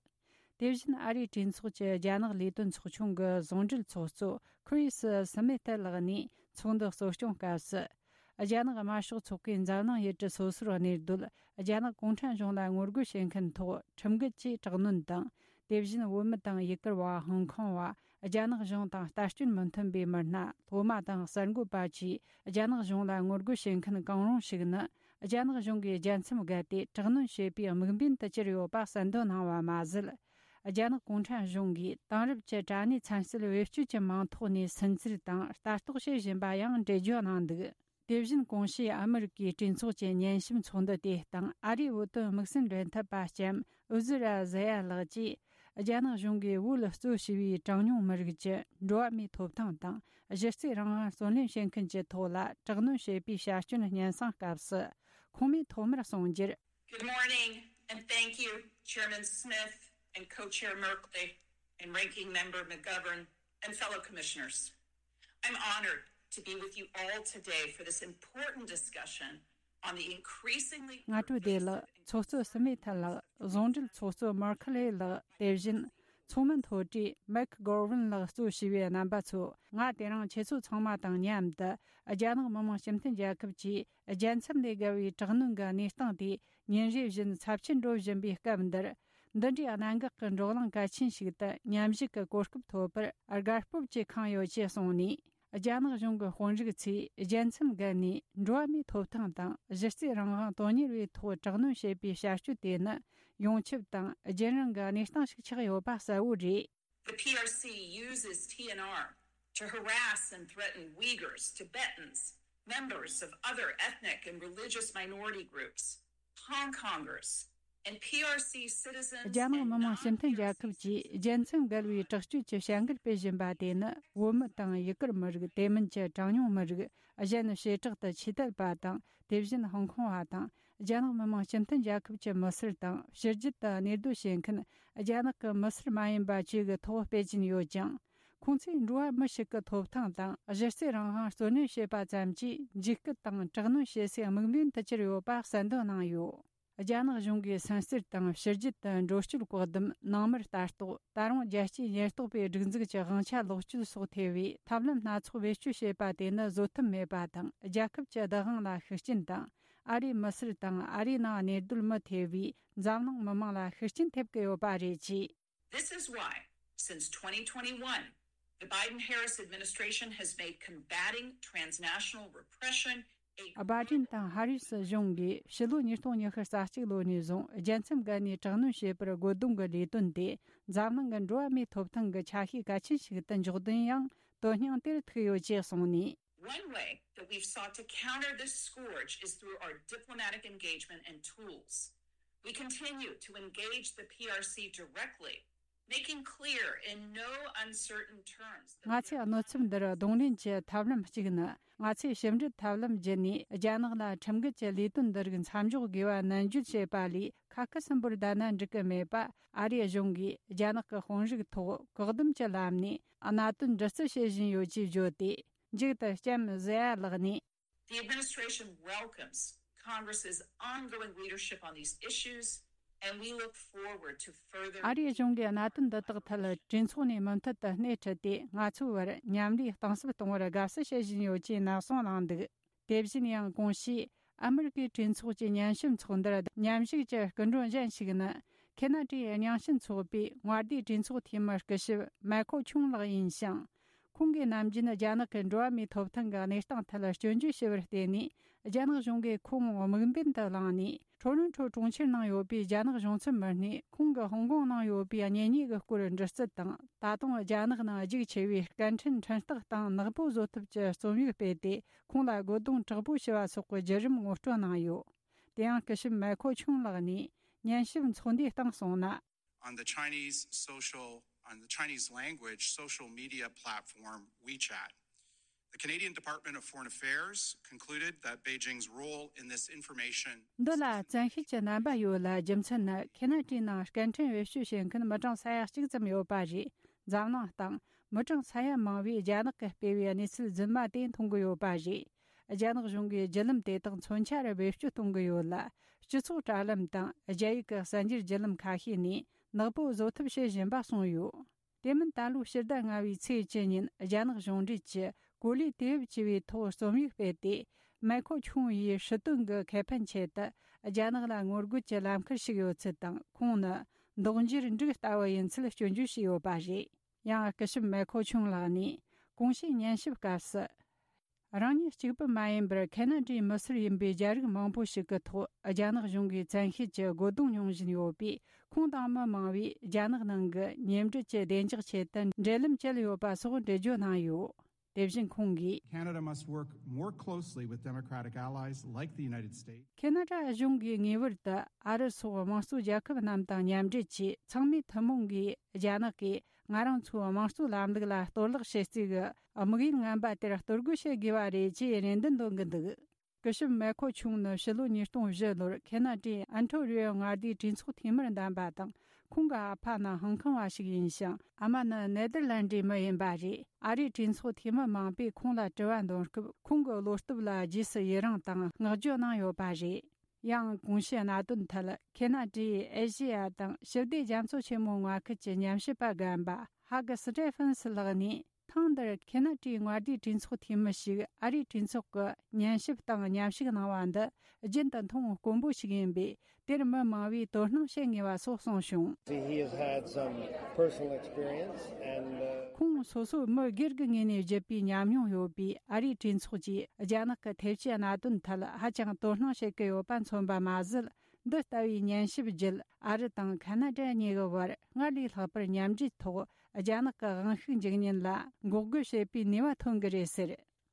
དེ་བཞིན་ཨ་རིའི་གྲོས་ཚོགས་ཀྱི་རྒྱ་ནག་ལས་དོན་ཚོགས་ཆུང་གི་ཟུང་འབྲེལ་ཚོགས་གཙོ་ཁི་རི་སི་སི་མེ་ཐི་ལགས་ནས་ཚོགས་འདུ་གཙོ་སྐྱོང་སྐབས་སུ། རྒྱ་ནག་དམར་ཤོག་ཚོགས་པས་འཛམ་གླིང་ཡུལ་གྲུ་སོ་སོར་གནས་སྡོད་རྒྱ་ནག་གུང་ཁྲན་གཞུང་ལ་ངོ་རྒོལ་བྱེད་མཁན་ཐོག་ཁྲིམས་འགལ་གྱིས་དྲག་གནོན་དང་། དེ་བཞིན་བོད་མི་དང་ཡུ་གུར་བ། ཧོང་ཀོང་བ། རྒྱ་ནག་གཞུང་དང་ལྟ་སྐྱོན་མི་མཐུན་པའི་མི་སྣ། སློབ་མ་དང་གསར་འགོད་པ་བཅས་རྒྱ་ནག་གཞུང་ལ་ངོ་རྒོལ་བྱེད་མཁན་གང་རུང་ཞིག་ནི། རྒྱ་ནག་གཞུང་གིས་རྒྱལ་མཚམས་བརྒལ་ཏེ་དྲག་གནོན་བྱེད་པའི་དམིགས་འབེན་དུ་གྱུར་ཡོད་པ་གསལ་འདོན་གནང་བ་མ་ཟད། རྒྱ་ནག་གུང་ཁྲན་གཞུང་གིས་དེང་རབས་ཀྱི་དྲ་གནས་ཚན་རྩལ་བེད་སྤྱོད་ཀྱི་མིང་ཐོག་ནས་སུན་གཙེར་དང་ལྟ་རྟོག་བྱེད་བཞིན་པ་ཡང་འགྲེལ་བརྗོད་གནང་འདུག། དེ་བཞིན་གོང་ཞུས་ཨ་མི་རི་ཀའི་གྲོས་ཚོགས་ཀྱི་ཉན་ཞིབ་ཚོགས་འདུ་དེའི་སྟེང་ཨ་རིའི་བོད་དོན་དམིགས་བསལ་འབྲེལ་མཐུད་པ་ལྕམ་ཨུ་ཛི་ར་ཟེ་ཡ་ལགས་ཀྱིས། རྒྱ་ནག་གཞུང་གིས་བོད་ལ་གཙོས་བྱས་པའི་གྲངས་ཉུང་མི་རིགས་ཀྱི་འགྲོ་བ་མིའི་ཐོབ་ཐང་དང་གཞི་རྩའི་རང་དབང་བརྩོན་ལེན་བྱེད་མཁན་གྱི་ཐོག་ལ་དྲག་གནོན་བྱེད་པའི་བྱ་སྤྱོད་སྙན་སེང་སྐབས་སུ། ཁོང་མིས་ཐོག་མར་གསུངས་རྒྱུར། Good morning, and thank you, Chairman Smith and Co-Chair Merkley and Ranking Member McGovern and fellow commissioners. I'm honored to be with you all today for this important discussion on the increasingly སྔ་དྲོ་བདེ་ལེགས། pervasive ཚོགས་གཙོ་སི་མེ་ཐལ་ལགས། ཟུང་འབྲེལ་ཚོགས་གཙོ་མར་ཁི་ལེ་ལགས། དེ་བཞིན་ཚོགས་མི་མཐོ་གྲས་མེག་གོར་ཝིན་ལགས་གཙོས་བྱས་པའི་རྣམ་པ་ཚོ། ང་དེ་རིང་ཁྱེད་ཚོ་ཚང་མ་དང་མཉམ་དུ་རྒྱ་ནག་མི་དམངས་སྤྱི་མཐུན་རྒྱལ་ཁབ་ཀྱིས་རྒྱལ་མཚམས་ལས་བརྒལ་བའི་དྲག་གནོན་གྱི་གནས་སྟངས་དེ་ཉིན་རེ་བཞིན་ཚབས་ཆེར་འགྲོ་བཞིན་པའི་སྐབས་འདིར། འདི་འདྲའི་གནད་འགག་གི་བགྲོ་གླེང་གལ་ཆེན་ཞིག་ཏུ་མཉམ་ཞུགས་ཀྱི་གོ་སྐབས་ཐོབ་པར་དགའ་སྤོབས་ཀྱིས་ཁེངས་ཡོད་ཅེས་གསུངས་ནས། རྒྱ་ནག་གཞུང་གི་དཔོན་རིགས་ཚོས་རྒྱལ་མཚམས་བརྒལ་ནས་འགྲོ་བ་མིའི་ཐོབ་ཐང་དང་གཞི་རྩའི་རང་དབང་དོན་གཉེར་བའི་ཐོག་དྲག་གནོན་བྱེད་པའི་བྱ་སྤྱོད་དེ་ནི་ཡོངས་ཁྱབ་དང་རྒྱུན་རིང་གི་གནས་སྟངས་ཤིག་ཆགས་ཡོད་པ་གསལ་བོ་རེད། The P R C uses T N R to harass and threaten Uyghurs, Tibetans, members of other ethnic and religious minority groups, Hong Kongers, and P R C citizens རྒྱ་ནག་མི་དམངས་སྤྱི་མཐུན་རྒྱལ་ཁབ་ཀྱིས་རྒྱལ་མཚམས་བརྒལ་བའི་དྲག་སྤྱོད་ཀྱི་བྱ་འགུལ་སྤེལ་བཞིན་པ་དེ་ནི། བོད་མི་དང་ཡུ་གུར་མི་རིགས། དེ་མིན་གྱི་གྲངས་ཉུང་མི་རིགས། གཞན་བྱེ་བྲག་ཏུ་ཆོས་དད་པ་དང་། དེ་བཞིན་ཧོང་ཀོང་བ་དང་། རྒྱ་ནག་མི་དམངས་སྤྱི་མཐུན་རྒྱལ་ཁབ་ཀྱི་མི་སེར་དང་། ཕྱི་རྒྱལ་དུ་གནས་སྡོད་བྱེད་མཁན་རྒྱ་ནག་གི་མི་སེར་མ་ཡིན་པ་བཅས་ཀྱི་ཐོག་སྤེལ་གྱིན་ཡོད་ཅིང་། ཁོང་ཚོས་འགྲོ་བ་མི་ཞིག་གི་ཐོབ་ཐང་དང་གཞི་རྩའི་རང་དབང་བརྩོན་ལེན་བྱེད་པ་ཙམ་གྱིས་འཇིགས་སྐུལ་དང་དྲག་གནོན་བྱེད་སའི་དམིགས་འབེན་དུ་གྱུར་ཡོད་པ་གསལ་འདོན་གནང་ཡོད། རྒྱ་ནག་གཞུང་གིས་སུན་གཙེར་དང་ཕྱི་རྒྱལ་དུ་འགྲོ་སྐྱོད་བཀག་སྡོམ། ནང་མིར་ལྟ་རྟོག་ད་རུང་རྒྱལ་སྤྱིའི་ཉེན་རྟོག་པའི་སྒྲིག་འཛུགས་ཀྱི་དབང་ཆ་ལོག་སྤྱོད་སོགས་ཐེ་བའི་ཐབས་ལམ་སྣ་ཚོགས་བེད་སྤྱོད་བྱེད་པ་དེ་ནི་བཟོད་ཐབས་མེད་པ་དང་། རྒྱལ་ཁབ་ཀྱི་བདག་དབང་ལ་ཤུགས་རྐྱེན་དང་། ཨ་རིའི་མི་སེར་དང་ཨ་རིའི་ནང་གནས་སྡོད་མི་ཐེ་བའི་འཛམ་གླིང་མི་དམངས་ལ་ཤུགས་རྐྱེན་ཐེབས་ཀྱི་ཡོད་པ་རེད་ཅེས། This is why, since twenty twenty-one, the Biden-Harris administration has made combating transnational repression a བྷ་ཌེན་དང་ཧ་རི་སི་གཞུང་གིས་ཕྱི་ལོ་ཉིས་སྟོང་ཉི་ཤུ་རྩ་གཅིག་ལོ་ནས་བཟུང་རྒྱལ་མཚམས་བརྒལ་ནས་དྲག་གནོན་བྱེད་པར་རྒོལ་རྡུང་གི་ལས་དོན་དེ་འཛམ་གླིང་གི་འགྲོ་བ་མིའི་ཐོབ་ཐང་གི་ཆ་ཤས་གལ་ཆེན་ཞིག་ཏུ་འཇོག་དོན་ཡང་དོན་སྙིང་དེར་ཐུག་ཡོད་ཅེས་གསུངས་ནས། One way that we've sought to counter this scourge is through our diplomatic engagement and tools. We continue to engage the P R C directly, making clear in no uncertain terms that ང་ཚོས་གནོད་འཚེ་འདིར་གདོང་ལེན་གྱི་ཐབས་ལམ་གཅིག་ནི། ང་ཚོས་ཞིབ་འབྲི་ཐབས་ལམ་བརྒྱུད་ནས་རྒྱ་ནག་ལ་ཁྲིམས་འགལ་གྱི་ལས་དོན་འདི་རིགས་མཚམས་འཇོག་དགོས་པ་ནན་བརྗོད་བྱས་པ་ལས། ཁ་སྐད་གསུམ་པོར་བསྡད་ན་འགྲིག་གི་མེད་པ། ཨ་རིའི་གཞུང་གིས་རྒྱ་ནག་གི་དཔོན་རིགས་ཐོག་བཀག་སྡོམ་གྱི་ལམ་ནས་གནད་དོན་འདྲི་རྩད་བྱེད་བཞིན་ཡོད་ཅེས་བརྗོད་དེ། མཇུག་ཏུ་ལྕམ་ཟེ་ཡ་ལགས་ནས། The administration welcomes Congress's ongoing leadership on these issues, and we look forward to further ཨ་རིའི་གཞུང་གིས་གནད་དོན་འདི་དག་ཐད་གྲོས་ཚོགས་ནས་མུ་མཐུད་དུ་སྣེ་ཁྲིད་དེ། ང་ཚོའི་བར་མཉམ་ལས་གཏིང་ཟབ་གཏོང་བར་དགའ་བསུ་བྱེད་བཞིན་ཡོད་ཅེས་ནན་གསུངས་གནང་འདུག་དེ་བཞིན་ཡང་གོང་ཞུས་ཨ་མི་རི་ཀའི་གྲོས་ཚོགས་ཀྱི་ཉན་ཞིབ་ཚོགས་འདུར་མཉམ་ཞུགས་ཀྱི་སྐུ་མགྲོན་གཞན་ཞིག་ནི། ཁེ་ན་ཌའི་རྙིང་ཞེན་ཚོགས་པའི་དངོས་བདེན་གྲོས་ཚོགས་འཐུས་མི་སྐུ་ཞབས་མའི་ཁོ་ཆུང་ལགས་ཡིན་ཞིང་། ཁོང་གིས་ནམ་རྒྱུན་རྒྱ་ནག་གི་འགྲོ་བ་མིའི་ཐོབ་ཐང་གི་གནས་སྟངས་ཐད་སྐྱོན་བརྗོད་བྱས་པར་བརྟེན་ནས། རྒྱ་ནག་གཞུང་གིས་ཁོང་དམིགས་འབེན་དུ་བླངས་ནས། ཁྲོ་རོན་ཁྲོ་གྲོང་ཁྱེར་ནང་ཡོད་པའི་རྒྱ་ནག་གཞུང་ཚབ་མི་སྣས་ཁོང་གི་ཧོང་ཀོང་ནང་ཡོད་པའི་གཉེན་ཉེ་གི་སྐོར་འདྲི་རྩད་དང་། ད་དུང་རྒྱ་ནག་ནང་རྒྱུགས་ཆེ་བའི་སྐད་འཕྲིན་འཕྲིན་སྟེགས་སྟེང་ནག་པོ་བཟོ་ཐབས་ཀྱི་རྩོམ་ཡིག་སྤེལ་ཏེ། ཁོང་ལ་རྒོལ་རྡུང་དྲག་པོ་བྱས་པ་སོགས་ཀྱི་བརྒྱུད་རིམ་ངོ་སྤྲོད་གནང་ཡོད། དེ་ཡང་སྐུ་ཞབས་མའི་ཁོ་ཆུང་ལགས་ནས་ཉན་ཞིབ་ཚོགས་འདུའི་སྟེང་གསུངས་ན། On the Chinese social, on the Chinese language social media platform WeChat, the Canadian Department of Foreign Affairs concluded that Beijing's role in this information འདི་ལ་བཙན་ཤེད་ཀྱི་རྣམ་པ་ཡོད་ལ། རྒྱུ་མཚན་ནི་ཁེ་ན་ཌའི་ནང་སྐད་འཕྲིན་བེད་སྤྱོད་བྱེད་མཁན་མི་གྲངས་ས་ཡ་གཅིག་ཙམ་ཡོད་པ་རེད། འཛམ་གླིང་སྟེང་མི་གྲངས་ས་ཡ་མང་བས་རྒྱ་ནག་གིས་སྤེལ་བའི་གནས་ཚུལ་རྫུན་མ་དེ་མཐོང་གི་ཡོད་པ་རེད། རྒྱ་ནག་གཞུང་གིས་བརྒྱུད་ལམ་དེ་དག་མཚོན་ཆ་རུ་བེད་སྤྱོད་གཏོང་གི་ཡོད་ལ། སྤྱི་ཚོགས་དྲ་ལམ་དང་རྒྱ་ཡིག་གི་གསར་འགྱུར་བརྒྱུད་ལམ་ཁ་ཤས་ནས་ནག་པོ་བཟོ་ཐབས་བྱེད་བཞིན་པ་གསུངས་ཡོད། དེ་མིན་ད་ལོའི་ཕྱི་ཟླ་ལྔ་བའི་ཚེས་བཅུ་ཉིན་རྒྱ་ནག་གཞུང་འབྲེལ་གྱི་གོ་ལའི་དུས་བབ་ཅེས་པའི་ཐོག་རྩོམ་ཡིག་སྤེལ་ཏེ། མའི་ཁོ་ཆུང་ཡིས་སྲིད་དོན་གྱི་ཁེ་ཕན་ཆེད་དུ་རྒྱ་ནག་ལ་ངོ་རྒོལ་གྱི་ལམ་ཁར་ཞུགས་ཡོད་ཚུལ་དང་། ཁོང་ནི་མདོག་འགྱུར་འབྲུག་ལྟ་བུ་ཡིན་ཚུལ་སྐྱོན་བརྗོད་བྱས་ཡོད་པ་རེད། ཡང་སྐུ་ཞབས་མའི་ཁོ་ཆུང་ལགས་ནས་གོང་ཞུས་ཉན་ཞིབ་སྐབས་སུ། རང་ཉིད་གཅིག་པུ་མ་ཡིན་པར་ཁེ་ན་ཌའི་མི་སེར་ཡིན་པའི་རྒྱ་རིགས་མང་པོ་ཞིག་གི་ཐོག་རྒྱ་ནག་གཞུང་གིས་བཙན་ཤེད་ཀྱི་རྒོལ་རྡུང་མྱོང་བཞིན་ཡོད་པས། ཁོང་དང་མི་མང་བས་རྒྱ་ནག་ནང་གི་ཉེ་འབྲེལ་གྱི་བདེ་འཇགས་ཆེད་དུ་འབྲེལ་ལམ་བཅད་ཡོད་པ་སོགས་འགྲེལ་བརྗོད་གནང་ཡོད། དེ་བཞིན་ཁོང་གིས། Canada must work more closely with democratic allies like the United States. ཁེ་ན་ཌ་གཞུང་གིས་ངེས་པར་དུ་ཨ་རི་སོགས་དམངས་གཙོ་རྒྱལ་ཁབ་རྣམས་དང་མཉམ་འབྲེལ་གྱིས། ཚང་མས་ཐུན་མོང་གིས་རྒྱ་ནག་གིས་ང་རང་ཚོའི་དམངས་གཙོའི་ལམ་ལུགས་ལ་གཏོར་བརླག་བྱེད་རྩིས་ཀྱི་དམིགས་ཡུལ་ངན་པ་དེར་གཏོར་རྒོལ་བྱེད་དགོས་པ་རེད་ཅེས་རེ་འདུན་འདོན་གྱི་འདུག་སྐུ་ཞབས་མའི་ཁོ་ཆུང་ནི་ཕྱི་ལོ་ཉིས་སྟོང་བཞི་ལོར་ཁེ་ན་ཌའི་ཨན་ཐོ་རི་ཡོ་མངའ་སྡེའི་གྲོས་ཚོགས་འཐུས་མིར་འདེམས་པ་དང་། ཁོང་གི་ཨ་ཕ་ནི་ཧང་ཁང་བ་ཞིག་ཡིན་ཞིང་། ཨ་མ་ནི་ནེ་དར་ལན་ཌའི་མི་ཡིན་པ་རེད། ཨ་རིའི་གྲོས་ཚོགས་འཐུས་མི་མང་པོས་ཁོང་ལ་དྲི་བ་འདོན་སྐབས། ཁོང་གི་བློ་སྟོབས་ལ་རྗེས་སུ་ཡི་རང་དང་བསྔགས་བརྗོད་གནང་ཡོད་པ་རེད། ཡང་གོང་ཞུས་གནད་དོན་ཐད། ཁེ་ན་ཌའི་ཨེ་ཤེ་ཡ་དང་ཞི་བདེ་རྒྱ་མཚོ་ཆེན་མོའི་མངའ་ཁུལ་གྱི་ཉམས་ཞིབ་པ་རྒན་པ་ཧ་གི་སི་ཏྲེ་ཕན་སི་ལགས་ནས། ཐེངས་འདིར་ཁེ་ན་ཌའི་མངའ་སྡེའི་གྲོས་ཚོགས་འཐུས་མི་ཞིག་ཨ་རིའི་གྲོས་ཚོགས་ཀྱི་ཉན་ཞིབ་དང་མཉམ་ཞུགས་གནང་བ་འདི་རྒྱུན་དུ་མཐོང་དཀོན་པོ་ཞིག་ཡིན་པས། དེར་མི་མང་བས་དོ་སྣང་བྱེད་ངེས་པ་སོགས་གསུངས་བྱུང་། He has had some personal experience and, uh, ཁོང་སོ་སོའི་མི་སྒེར་གྱི་ངོས་ནས་བརྒྱུད་པའི་ཉམས་མྱོང་ཡོད་པས། ཨ་རིའི་གྲོས་ཚོགས་ཀྱིས་རྒྱ་ནག་གི་ཐེབས་ཇུས་གནད་དོན་ཐད་ཧ་ཅང་དོ་སྣང་བྱེད་ཀྱི་ཡོད་པ་མཚོན་པ་མ་ཟད། འདི་ལྟ་བུའི་ཉན་ཞིབ་བརྒྱུད། ཨ་རི་དང་ཁ་ན་ཌ་གཉིས་ཀྱི་བར་སྔར་ལས་ལྷག་པར་མཉམ་འབྲེལ་ཐོག་རྒྱ་ནག་གི་དབང་ཤུགས་འཇུག་ཉེན་ལ་འགོག་རྒོལ་བྱེད་པའི་ནུས་པ་ཐོན་གྱི་རེད་ཟེར།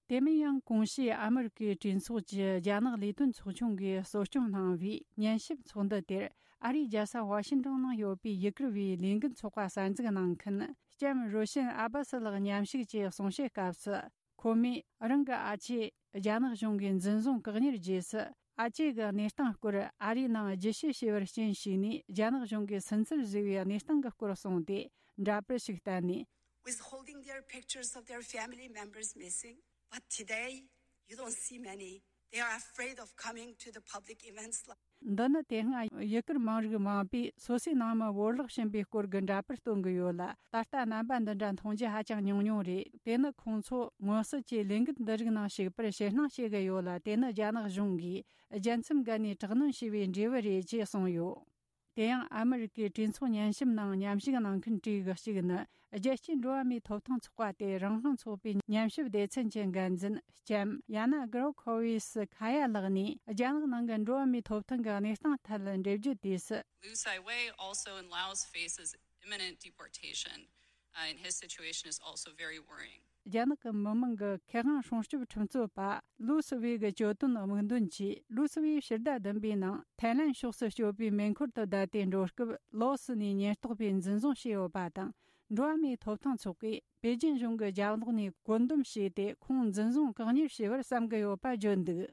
དེ་མིན་ཡང་གོང་ཞུས་ཨ་མི་རི་ཀའི་གྲོས་ཚོགས་ཀྱི་རྒྱ་ནག་ལས་དོན་ཚོགས་ཆུང་གིས་གཙོ་སྐྱོང་གནང་བའི་ཉན་ཞིབ་ཚོགས་འདུ་དེར། ཨ་རིའི་རྒྱལ་ས་ཝ་ཤིང་ཏོན་ནང་ཡོད་པའི་ཡུ་གུར་བའི་ལས་འགུལ་ཚོགས་པ་གསར་འཛུགས་གནང་མཁན་ལྕམ་རོ་ཤན་ཨ་བྷ་སི་ལགས་མཉམ་ཞུགས་ཀྱིས་གསུང་བཤད་སྐབས་སུ། ཁོ་མོས་རང་གི་ཨ་ཅེ་རྒྱ་ནག་གཞུང་གིས་འཛིན་བཟུང་བཀག་ཉར་རྗེས་སུ། ཨ་ཅེ་གི་གནས་སྟངས་སྐོར་ཨ་རིའི་ནང་རྒྱུ་དཔྱད་བྱས་པར་རྐྱེན་ཞིག་ནས། རྒྱ་ནག་གཞུང་གིས་སུན་གཙེར་བཟོས་པའི་གནས་སྟངས་ཀྱི་སྐོར་གསུངས་ཏེ། འདྲ་པར་ཞིག་བསྟན་ནས། Withholding their pictures of their family members missing, but today you don't see many. They are afraid of coming to the public events. འདི་ནི་དེ་སྔ་ཡུ་གུར་མང་རིགས་མང་པོས་སོ་སོའི་ནང་མི་བོར་བརླག་ཕྱིན་པའི་སྐོར་གྱི་འདྲ་པར་སྟོན་གྱི་ཡོད་ལ། ད་ལྟ་རྣམ་པ་འདི་འདྲ་མཐོང་རྒྱུ་ཧ་ཅང་ཉུང་ཉུང་རེད། དེ་ནི་ཁོང་ཚོ་མངོན་གསལ་གྱིས་ལས་འགུལ་འདི་རིགས་ནང་ཞུགས་པར་ཕྱིར་སྣང་བྱེད་ཀྱི་ཡོད་ལ། དེ་ནི་རྒྱ་ནག་གཞུང་གིས་རྒྱལ་མཚམས་བརྒལ་ནས་དྲག་གནོན་བྱས་པའི་འབྲས་བུ་རེད་ཅེས་གསུངས་ཡོད། དེ་ཡང་ཨ་མི་རི་ཀའི་གྲོས་ཚོགས་ཉན་ཞིབ་ནང་མཉམ་ཞུགས་གནང་མཁན་གྲས་ཀྱི་གཅིག་ནི། རྒྱལ་སྤྱིའི་འགྲོ་བ་མིའི་ཐོབ་ཐང་ཚོགས་པ་སྟེ་རང་དབང་ཚོགས་པའི་ཉམས་ཞིབ་སྡེ་ཚན་གྱི་འགན་འཛིན་ལྕམ་ཡ་ན་གྷྲོ་ཁོ་ཝི་སི་ཁ་ཡ་ལགས་ནས། རྒྱ་ནག་ནང་གི་འགྲོ་བ་མིའི་ཐོབ་ཐང་གི་གནས་སྟངས་ཐད་འགྲེལ་བརྗོད་དུས་སུ། Liu Saiwei, also in Laos, faces imminent deportation, uh, and his situation is also very worrying. རྒྱ་ནག་གི་མི་དམངས་ཀྱི་ཁེ་དབང་སྲུང་སྐྱོབ་ཁྲིམས་རྩོད་པ་ལུའུ་སི་ཝེ་གི་གྱོད་དོན་དམིགས་འདོན་གྱིས། ལུའུ་སི་ཝེ་ཕྱི་ཟླ་བདུན་པའི་ནང་ཐའི་ལན་ཕྱོགས་སུ་སྐྱོད་པའི་མེ་འཁོར་དུ་བསྡད་དེ་འགྲོ་སྐབས། ལའོ་སི་ནས་ཉེན་རྟོག་པས་འཛིན་བཟུང་བྱས་ཡོད་པ་དང་། འགྲོ་བ་མིའི་ཐོབ་ཐང་ཚོགས་པས་པེ་ཅིན་གཞུང་གི་རྒྱབ་ལོགས་ནས་བཀོད་འདོམས་བྱས་ཏེ། ཁོང་འཛིན་བཟུང་བཀག་ཉར་བྱས་པར་བསམ་གྱི་ཡོད་པ་བརྗོད་འདུག་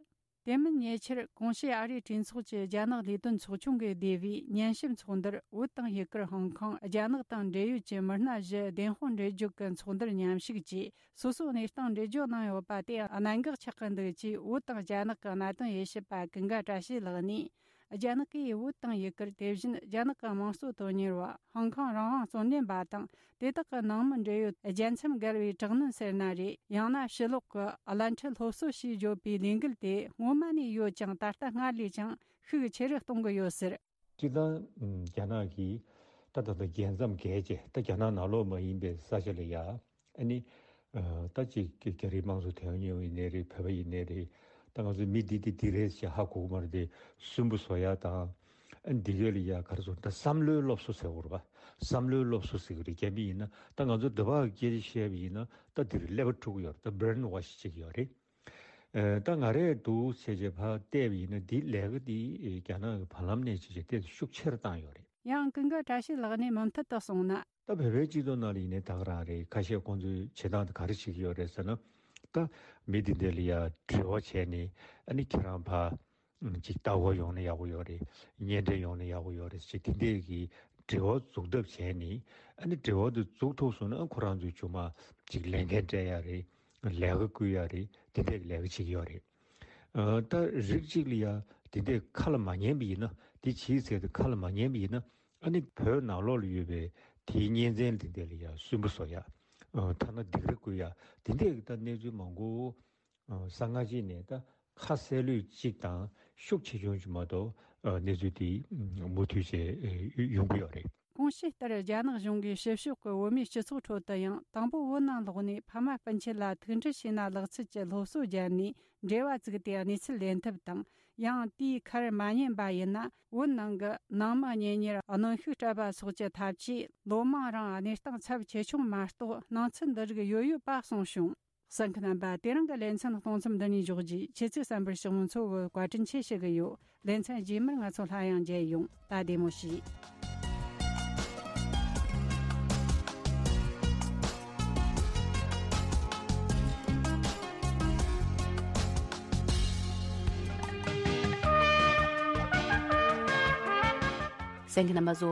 དེ་མིན་ཉེ་ཆར། གོང་ཞུས་ཨ་རིའི་གྲོས་ཚོགས་ཀྱི་རྒྱ་ནག་ལས་དོན་ཚོགས་ཆུང་གི་སྡེ་བའི་ཉན་ཞིབ་ཚོགས་འདུར། བོད་དང་ཡུ་གུར། ཧོང་ཀོང་། རྒྱ་ནག་དང་འབྲེལ་ཡོད་ཀྱི་མི་སྣ་བཞི་བདེན་དཔང་འབྲེལ་གཅོད་ཀྱི་ཚོགས་འདུར་མཉམ་ཞུགས་ཀྱིས། སོ་སོའི་གནས་སྟངས་འགྲེལ་བརྗོད་གནང་ཡོད་པ་དེ་གནད་འགག་ཆགས་ཀྱི་འདུག་ཅེས། བོད་དང་རྒྱ་ནག་གི་གནད་དོན་དབྱེ་ཞིབ་པ་ཀུན་དགའ་བཀྲ་ཤིས་ལགས་ནས། རྒྱ་ནག་གིས་བོད་དང་ཡུ་གུར། དེ་བཞིན་རྒྱ་ནག་གི་དམངས་གཙོ་དོན་གཉེར་བ། ཧོང་ཀོང་རང་དབང་རྩོད་ལེན་པ་དང་། དེ་དག་གི་ནང་མི་འབྲེལ་ཡོད་རྒྱལ་མཚམས་བརྒལ་བའི་དྲག་གནོན་ཟེར་ན་རེད། ཡང་ན་ཕྱི་ལོགས་ཀྱི་བླ་འཁྲི་སློབ་གསོ་ཞེས་བརྗོད་པའི་ལས་འགུལ་དེ་སྔོན་མ་ནས་ཡོད་ཀྱང་། ད་ལྟ་སྔར་ལས་ཀྱང་ཤུགས་ཆེ་རུ་གཏོང་གི་ཡོད་ཟེར། སྤྱིར་བཏང་རྒྱ་ནག་གིས་ད་ད་ལྟ་རྒྱལ་མཚམས་བརྒལ་རྗེས། ད་རྒྱ་ནག་ནང་ལོགས་མ་ཡིན་པའི་ས་ཆ་ལ་ཡ། ཨ་ནི། ཨ། ད་ཅིག་རྒྱ་རིགས་དམངས་གཙོ་དོན་གཉེར་བ་ཡིན་ནའི་རེད། བོད་པ་ཡིན་ནའི་རེད། ད་ང་ཚོ་མི་འདི་འདི་འདི་རེད་ཅེས་ཧ་གོ་གི་མ་རེད་དེ། སུན་པོ་བཟོ་ཡ་དང་། ཨ་ནི་འདི་གས་ལ་ཡ་ག་རེ་ཟེར། ད་བསམ་བློའི་སློབ་གསོ་ཟེར་དགོས་རེད་པ། བསམ་བློའི་སློབ་གསོ་ཟེར་གི་རེད། རྒྱ་མི་ཡིན་ན། ད་ང་ཚོ་འདི་བ་སྐད་ཆ་བཤད་པ་ཡིན་ན། ད་འདིར་ཀླད་པ་འཁྲུག་གི་ཡོད་རེད། ད་བྷི་རེན་ཝོཤ་བྱེད་ཀྱི་ཡོད་རེད། ཨ། ད་ང་རས་འདུག་བྱས་རྗེས་ཕར་བལྟས་པ་ཡིན་ན། འདི་ལས་ཀ་འདི་རྒྱ་ནག་གི་བར་ལམ་ནས་བྱས་རྗེས་དེ་ཤུགས་ཆེ་རུ་བཏང་ཡོད་རེད། ཡང་ཀུན་དགའ་བཀྲ་ཤིས་ལགས་ནས་མུ་མཐུད་དུ་གསུངས་ན། ད་བོད་པའི་སྤྱི་ཚོགས་ནང་ལ་ཡིན་ནའི་ད་ག་རང་རེད། ཁ་ཤས་ཁོང་ཚོས་བྱེད་སྟངས་དེ་ག་རེ་བྱེད་ཀྱི་ཡོད་རེད་ཟེར་ན། ད་མི་དེ་འདྲ་ལ་ཡ་འབྲེལ་བ་བྱས་ནས། ཨ་ནི་ཁྱེད་རང་ཕར་ཅིག་ལྟ་སྐོར་ཡོང་ན་ཡག་པོ་ཡོད་རེད། གཉེན་འཕྲད་ཡོང་ན་ཡག་པོ་ཡོད་རེད་ཅེས། དེ་འདྲས་ཀྱི་འབྲེལ་བ་འཛུགས་ཐབས་བྱས་ནས། ཨ་ནི་འབྲེལ་བ་དེ་འཛུགས་ཐུབ་སོང་ན། ཁོ་རང་ཚོས་ཅིག་མ་ཅིག་ལས་འགན་སྤྲད་ཡ་རེད། ལས་ཀ་བསྐུལ་ཡ་རེད། དེ་འདྲས་ཀྱི་ལས་ཀ་བྱེད་ཀྱི་ཡོད་རེད། ཨ། ད་རིགས་གཅིག་ལ་ཡ་དེ་འདྲས་ཁ་ལ་མ་ཉན་པ་ཡིན་ན། དེ་བྱས་ཟེར་ཏེ་ཁ་ལ་མ་ཉན་པ་ཡིན་ན། ཨ་ནི་བོད་ནང་ལོགས་ལ་ཡོད་པའི་དེའི་གཉེན་ཚན་དེ་འདྲས་ལ་ཡ་སུན་པོ་བཟོ་ཡ། ཨ། ཐ་ན་སྡིགས་ར་བསྐུལ་ཡ། དེ་འདྲས་ཀྱི་ད་གནས་ཚུལ་མང་པོ། ཨ། གསང་སྔགས་ཅིག་ནས་ད་ཁ་གསལ་ལོས་གཅིག་དང་ཤུགས་ཆེ་ཆུང་ཅིག་མ་གཏོགས། ཨ། གནས་ཚུལ་དེ་མུ་མཐུད་བྱས་ཡོང་གི་ཡོད་རེད། གོང་ཞུས་ལྟར། རྒྱ་ནག་གཞུང་གིས་ཕྱི་ཕྱོགས་ཀྱི་བོད་མིའི་སྤྱི་ཚོགས་ཁྲོད་དུ་ཡང་། དང་པོ་བོད་ནང་ལོགས་ནས་ཕ་མ་སྤུན་མཆེད་ལ་ཐུག་འཕྲད་བྱས་ན་ལེགས་ཚུལ་གྱི་སློབ་གསོ་བརྒྱབ་ནས། འབྲེལ་བ་བཙུགས་ཏེ་གནས་ཚུལ་ལེན་ཐབས་དང་། ཡང་དེའི་ཁར་མ་ཉན་པ་ཡིན་ན། བོད་ནང་གི་ནང་མི་གཉེན་ཉེར་གནོན་ཤུགས་སྤྲད་པ་སོགས་ཀྱི་ཐབས་ཇུས། ལོ་མང་རིང་གནས་སྟངས་ཚབས་ཆེ་ཆུང་མ་གཏོགས། སྣང་ཚུལ་འདི་རིགས་ཡོད་ཡོད་པ་གསུངས་བྱུང་། གསན་མཁན་རྣམ་པ། དེ་རིང་གི་ལེ་ཚན་གཏོང་མཚམས་འདི་ནས་འཇོག་རྒྱུ། ཁྱེད་ཚོས་གསན་པར་ཞུ་མི་ཚོ་གི་བཀའ་དྲིན་ཆེ་ཞུ་གི་ཡོད། ལེ་ཚན་རྗེས་མར་ང་ཚོ་སླར་ཡང་མཇལ་ཡོང་། ད་བདེ་མོ་བྱོས། གསན་མཁན་རྣམ་པ་ཚོ།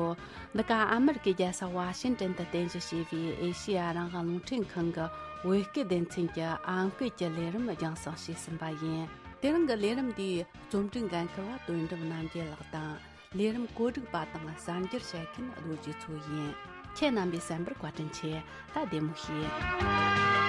འདི་ག་ཨ་མེ་རི་ཀའི་རྒྱལ་ས་ཝ་ཤིང་ཏན་དུ་རྟེན་གཞི་བྱས་པའི་ཨེ་ཤེ་ཡ་རང་དབང་རླུང་འཕྲིན་ཁང་གི་བོད་སྐད་སྡེ་ཚན་གྱི་ཨམ་སྐད་ཀྱི་ལས་རིམ་རྒྱང་སྲིང་བྱས་ཟིན་པ་ཡིན། དེ་རིང་གི་ལས་རིམ་འདིའི་རྩོམ་སྒྲིག་འགན་འཁུར་བ་དོན་གྲུབ་རྣམ་རྒྱལ་ལགས་དང་། ལས་རིམ་བཀོད་སྒྲིག་པ་དང་གསར་འགྱུར་བཤད་མཁན་རྡོ་རྗེ་མཚོ་ཡིན། ཁྱེད་རྣམ་པས་གསན་པར་བཀའ་དྲིན་ཆེ། ད་བདེ་མོ་བྱོས།